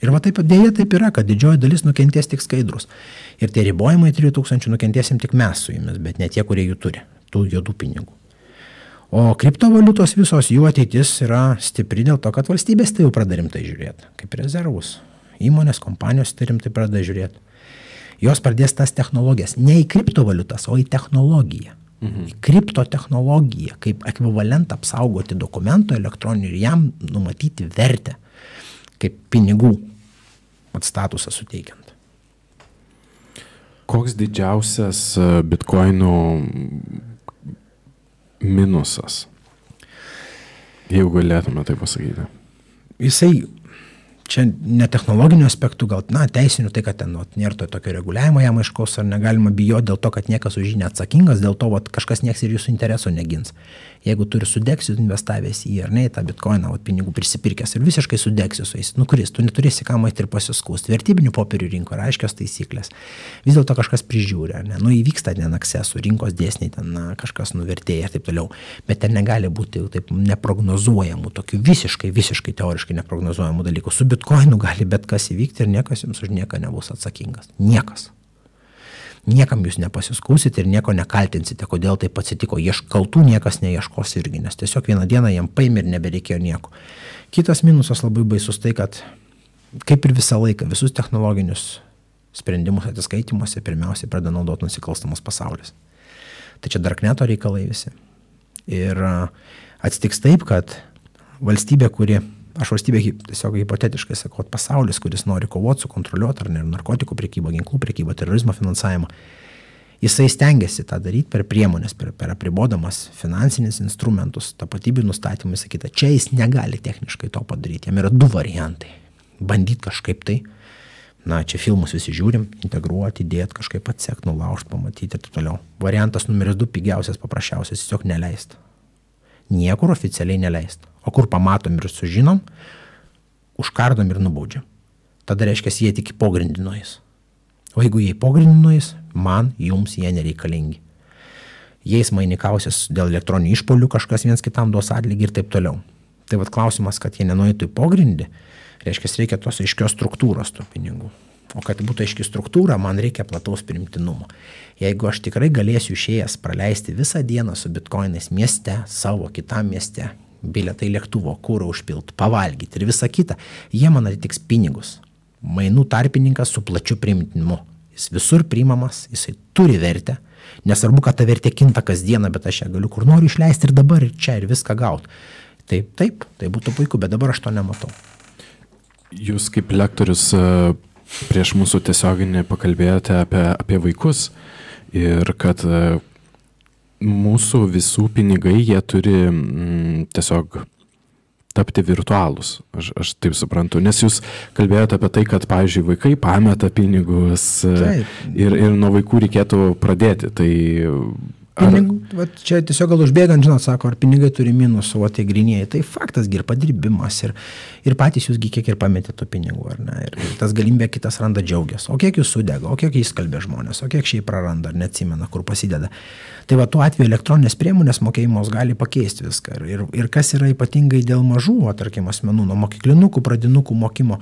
Ir taip dėja taip yra, kad didžioji dalis nukentės tik skaidrus. Ir tie ribojimai 3000 nukentėsim tik mes su jumis, bet ne tie, kurie jų turi, tų juodų pinigų. O kriptovaliutos visos jų ateitis yra stipri dėl to, kad valstybės tai jau pradeda rimtai žiūrėti, kaip rezervus. Įmonės, kompanijos tai rimtai pradeda žiūrėti. Jos pradės tas technologijas, ne į kriptovaliutas, o į technologiją. Į kriptotechnologiją, kaip ekvivalentą apsaugoti dokumento elektroninių ir jam numatyti vertę, kaip pinigų statusą suteikiant. Koks didžiausias bitkoinų minusas, jeigu galėtume tai pasakyti? Jisai čia ne technologinių aspektų, gal, teisinių, tai kad ten nėra to tokio reguliavimo jam aiškaus, ar negalima bijoti dėl to, kad niekas už jį neatsakingas, dėl to kažkas nieks ir jūsų interesų negins. Jeigu turi sudegsiu investavęs į ar ne, į tą bitkoiną, pinigų prisipirkęs ir visiškai sudegsiu su jais, kuris, tu neturėsi ką maiti ir pasiskūsti. Vertybinių popierių rinko yra aiškios taisyklės. Vis dėlto kažkas prižiūri, ar ne, įvyksta ten aksesų, rinkos dėsniai, ten kažkas nuvertėja ir taip toliau, bet ten negali būti taip neprognozuojamų, tokių visiškai teoriškai neprognozuojamų dalykų. Su bitkoinu gali bet kas įvykti ir niekas jums už nieką nebus atsakingas. Niekas. Niekam jūs nepasiskūsite ir nieko nekaltinsite, kodėl taip atsitiko. Kaltų niekas neieškos irgi, nes tiesiog vieną dieną jam paėmė ir nebereikėjo nieko. Kitas minusas labai baisus tai, kad kaip ir visą laiką, visus technologinius sprendimus atsiskaitimuose pirmiausiai pradeda naudoti nusikalstamas pasaulis. Tai čia darkneto reikalai visi. Ir atsitiks taip, kad valstybė, aš valstybė tiesiog hipotetiškai sakau, pasaulis, kuris nori kovoti, sukontroliuoti ar ne narkotikų prekybą, ginklų prekybą, terorizmo finansavimą, jisai stengiasi tą daryti per priemonės, per apribodamas finansinis instrumentus, tapatybių nustatymą, sakyta, čia jis negali techniškai to padaryti. Jam yra du variantai. Bandyti kažkaip tai, čia filmus visi žiūrim, integruoti, įdėti, kažkaip atsekti, nulaužti, pamatyti ir taip toliau. Variantas numeris 2, pigiausias, paprasčiausias, tiesiog neleist. Niekur oficialiai neleist. O kur pamatom ir sužinom, užkardom ir nubaudžiam. Tada reiškia, jie tik pogrindino jis. O jeigu jie pogrindino jis, man, jums jie nereikalingi. Jais mainikausias dėl elektroninių išpolių, kažkas viens kitam duos atlygį ir taip toliau. Tai klausimas, kad jie nenueitų į pogrindį, Tai reikia tos aiškios struktūros tų pinigų. O kad būtų aiški struktūra, man reikia plataus priimtinumo. Jeigu aš tikrai galėsiu išėjęs praleisti visą dieną su bitkoinais mieste, savo kitam mieste, bilietai lėktuvo, kūrą užpilt, pavalgyti ir visa kita, jie man atitiks pinigus. Mainų tarpininkas su plačiu priimtinumu. Jis visur priimamas, jisai turi vertę. Nesvarbu, kad ta vertė kinta kasdieną, bet aš ją galiu kur noriu išleisti ir dabar, ir čia, ir viską gauti. Taip, tai būtų puiku, bet dabar aš to nematau. Jūs kaip lektorius prieš mūsų tiesioginį pakalbėjote apie vaikus ir kad mūsų visų pinigai, jie turi tiesiog tapti virtualūs. Aš taip suprantu, nes jūs kalbėjote apie tai, kad, pavyzdžiui, vaikai pameta pinigus ir nuo vaikų reikėtų pradėti. Tai čia tiesiog gal užbėgant, žinot, sako, ar pinigai turi minusų, o tie grynieji. Tai faktas, ir padirbimas, ir patys jūs kiek ir pametė tų pinigų, ar ne? Ir tas galimybė kitas randa džiaugias. O kiek jūs sudega, o kiek jis kalbė žmonės, o kiek šiaip praranda, ar neatsimena, kur pasideda. Tai tuo atveju elektroninės priemonės mokėjimos gali pakeisti viską. Ir kas yra ypatingai dėl mažų, tarkim, asmenų, nuo mokyklinukų, pradinukų mokymo,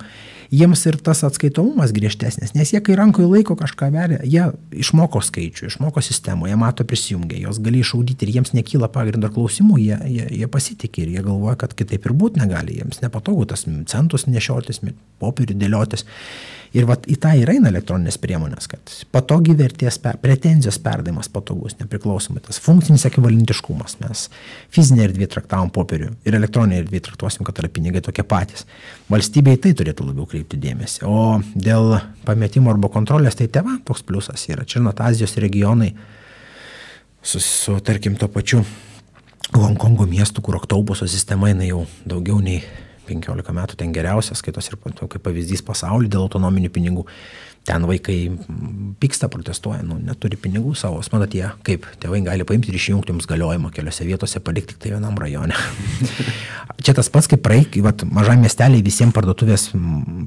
jiems ir tas atskaitomumas griežtesnis, nes jie, kai rankoje laiko kažką veria, jie išmoko skaičių, išmoko sistemą, jie mato prisijungia, jos gali išaudyti ir jiems nekyla pagrindo klausimų, jie pasitikė ir jie galvoja, kad kitaip ir būt negali, jiems nepatogu tas centus nešiotis, popierių dėliotis. Ir į tą ir eina elektroninės priemonės, kad patogi vertės, pretenzijos perdavimas patogus, nepriklausomai tas funkcinis ekvivalentiškumas. Mes fizinė erdvė traktavom popierių ir elektroninė erdvė traktuosim, kad yra pinigai tokie patys. Valstybėje tai turėtų labiau kreipti dėmesį. O dėl pametimo arba kontrolės, tai tėva toks pliusas yra. Čia Azijos regionai su tarkim, to pačiu Honkongo miestu, kur oktobuso sistema eina jau daugiau nei 15 metų, ten geriausias, skaitos ir kaip pavyzdys pasaulyje dėl autonominių pinigų. Ten vaikai pyksta, protestuoja, neturi pinigų savo. Manot, jie kaip tėvai gali paimti ir išjungti jums galiojimą keliose vietose, palikti tik tai vienam rajone. Čia tas pats, kaip mažam miesteliai visiems parduotuvės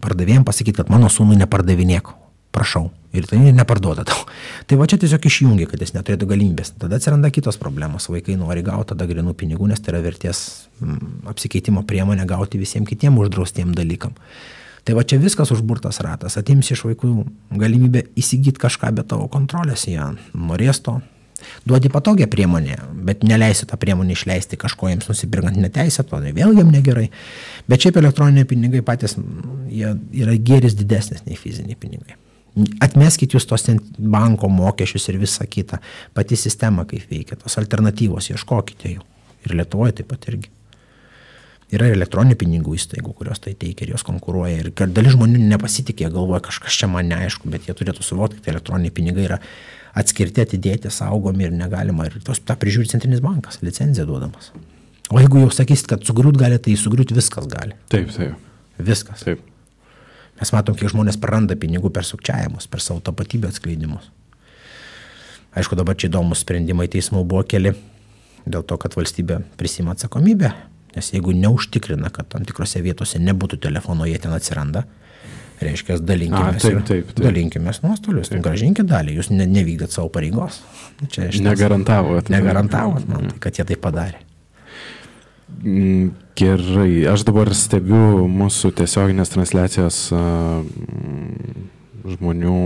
pardavėjams pasakyti, kad mano sūnui nepardavinėk. Prašau. Ir tai neparduoda tau. Tai čia tiesiog išjungia, kad jis neturėtų galimybės. Tada atsiranda kitos problemos. Vaikai nori gauti tada grinų pinigų, nes tai yra vertės apsikeitimo priemonė gauti visiems kitiem uždraustiem dalykam. Tai čia viskas užburtas ratas. Atims iš vaikų galimybę įsigyti kažką be tavo kontrolės. Jie norės to. Duodi patogią priemonę, bet neleisi tą priemonę išleisti kažko jiems nusipirkant neteisėto, tai vėl jiem negerai. Bet šiaip elektroniniai pinigai patys, jie yra gėris didesnis nei fiziniai pinigai. Atmeskit jūs tos banko mokesčius ir visą kitą. Pati sistema kaip veikia, tos alternatyvos ieškokite jų. Ir Lietuvoje taip pat irgi. Yra elektroninių pinigų įstaigų, kurios tai teikia ir jos konkuruoja. Ir dalis žmonių nepasitikė, galvoja, kažkas čia man neaišku, bet jie turėtų suvokti, kad elektroniniai pinigai yra atskirti, atidėti, saugomi ir negalima. Ir tą prižiūri Centrinis bankas, licenciją duodamas. O jeigu jau sakysit, kad sugriūt gali, tai sugriūt viskas gali. Taip. Viskas. Taip. Mes matom, kiek žmonės praranda pinigų per sukčiavimus, per savo tapatybę atskleidimus. Aišku, dabar čia įdomus sprendimai teismų buvo keli dėl to, kad valstybė prisima atsakomybę, nes jeigu neužtikrina, kad tam tikrose vietose nebūtų telefono, jie ten atsiranda, reiškia, dalinkimės nuostolius, gražinkit dalį, jūs nevykdėt savo pareigos. Negarantavot man, kad jie tai padarė. Gerai, aš dabar stebiu mūsų tiesioginės transliacijos žmonių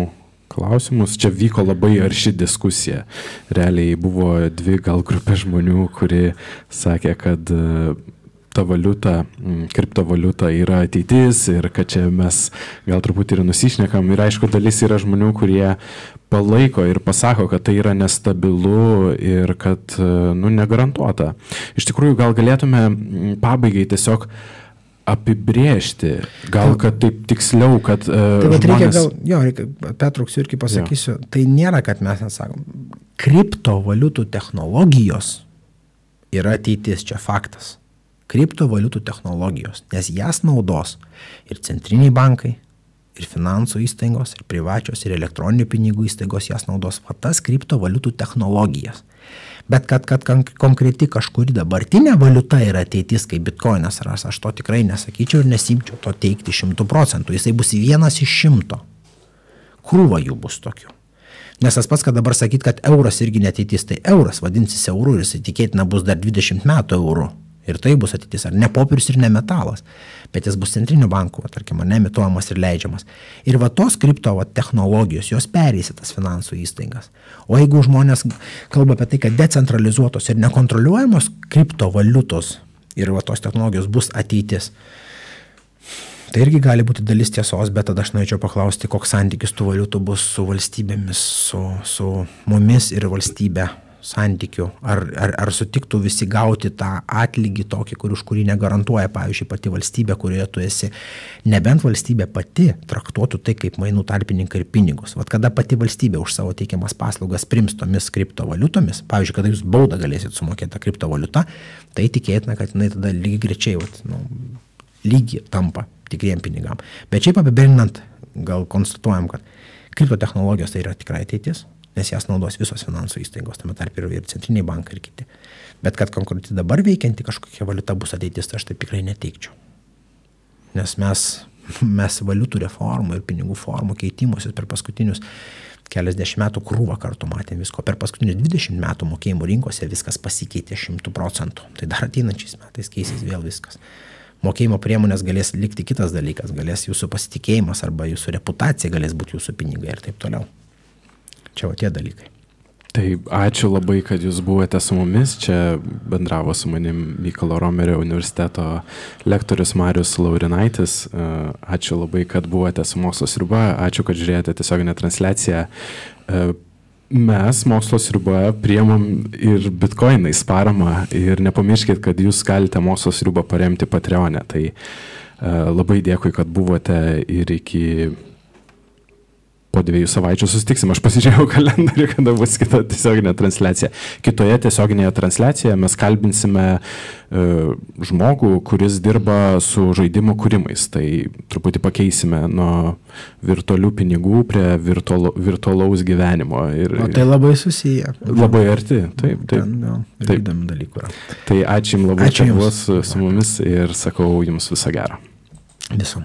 klausimus. Čia vyko labai arši diskusija. Realiai buvo dvi gal grupė žmonių, kurie sakė, kad ta valiuta, kriptovaliuta yra ateitis ir kad čia mes gal truputį ir nusišnekam. Ir aišku, dalis yra žmonių, kurie palaiko ir pasako, kad tai yra nestabilu ir kad negarantuota. Iš tikrųjų, gal galėtume pabaigai tiesiog apibrėžti, gal kad taip tiksliau, kad žmonės... Reikia, pertrauksiu irgi pasakysiu, tai nėra, kad mes nesakom. Kriptovaliutų technologijos yra ateitis, čia faktas. Kriptovaliutų technologijos, nes jas naudos ir centriniai bankai, ir finansų įstaigos, ir privačios, ir elektroninių pinigų įstaigos jas naudos tas kriptovaliutų technologijas. Bet kad konkreti kažkuri dabartinė valiuta yra ateitis, kaip bitkoinas ras, aš to tikrai nesakyčiau ir nesimčiau to teikti 100%. Jisai bus 1 iš 100. Krūva jų bus tokių. Nes tas pats, kad dabar sakyt, kad euras irgi neteitis, tai euras vadinsis euru ir jisai tikėtina bus dar 20 metų euru. Ir tai bus ateitis, ar ne popierius ir ne metalas, bet jis bus centrinių bankų, tarkim, nemituojamas ir leidžiamas. Ir va tos kripto technologijos, jos perės į tas finansų įstaigas. O jeigu žmonės kalba apie tai, kad decentralizuotos ir nekontroliuojamos kriptovaliutos ir va tos technologijos bus ateitis, tai irgi gali būti dalis tiesos, bet tada aš norėčiau paklausti, koks santykis tų valiutų bus su valstybėmis, su mumis ir valstybė santykių. Ar sutiktų visi gauti tą atlygį tokį, už kurį negarantuoja, pavyzdžiui, pati valstybė, kurioje tu esi, nebent valstybė pati traktuotų tai kaip mainų tarpininkai ir pinigus. Vat kada pati valstybė už savo teikiamas paslaugas priims tomis kriptovaliutomis, pavyzdžiui, kada jūs baudą galėsit sumokėti tą kriptovaliutą, tai tikėtina, kad jinai tada lygiai grečiai, lygiai tampa tikriem pinigam. Bet šiaip apibendrinant, gal konstatuojam, kad kriptotechnologijos tai yra tikrai ateitis, nes jas naudos visos finansų įstaigos, tame tarp ir centriniai bankai ir kiti. Bet kad konkrečiai dabar veikianti kažkokia valiuta bus ateitis, tai aš taip tikrai neteikčiau. Nes mes valiutų reformų ir pinigų formų keitimusius per paskutinius keliasdešimt metų krūvą kartų matėm visko. Per paskutinius 20 metų mokėjimų rinkose viskas pasikeitė 100%. Tai dar ateinančiais metais keisys vėl viskas. Mokėjimo priemonės galės likti kitas dalykas, galės jūsų pasitikėjimas arba jūsų reputacija galės būti jūsų pinigai ir taip toliau. Čia va tie dalykai. Tai ačiū labai, kad jūs buvote su mumis. Čia bendravo su manim Mykolo Romerio universiteto lektorius Marius Laurinaitis. Ačiū labai, kad buvote su Mokslo sriuba. Ačiū, kad žiūrėjote tiesioginę transliaciją. Mes Mokslo sriuba priemam ir bitkoinais paramą ir nepamirškit, kad jūs galite Mokslo sriubą paremti Patreone. Tai labai dėkui, kad buvote ir iki po 2 savaičių susitiksim. Aš pasižiūrėjau kalendorių, kada bus kita tiesioginė transliacija. Kitoje tiesioginėje transliacijoje mes kalbinsime žmogų, kuris dirba su žaidimų kūrimais. Tai truputį pakeisime nuo virtualių pinigų prie virtualaus gyvenimo. O tai labai susiję. Labai arti. Taip. Įdomių dalykų yra. Tai ačiū jums labai, kad buvot su mumis ir sakau jums viso gero. Viso.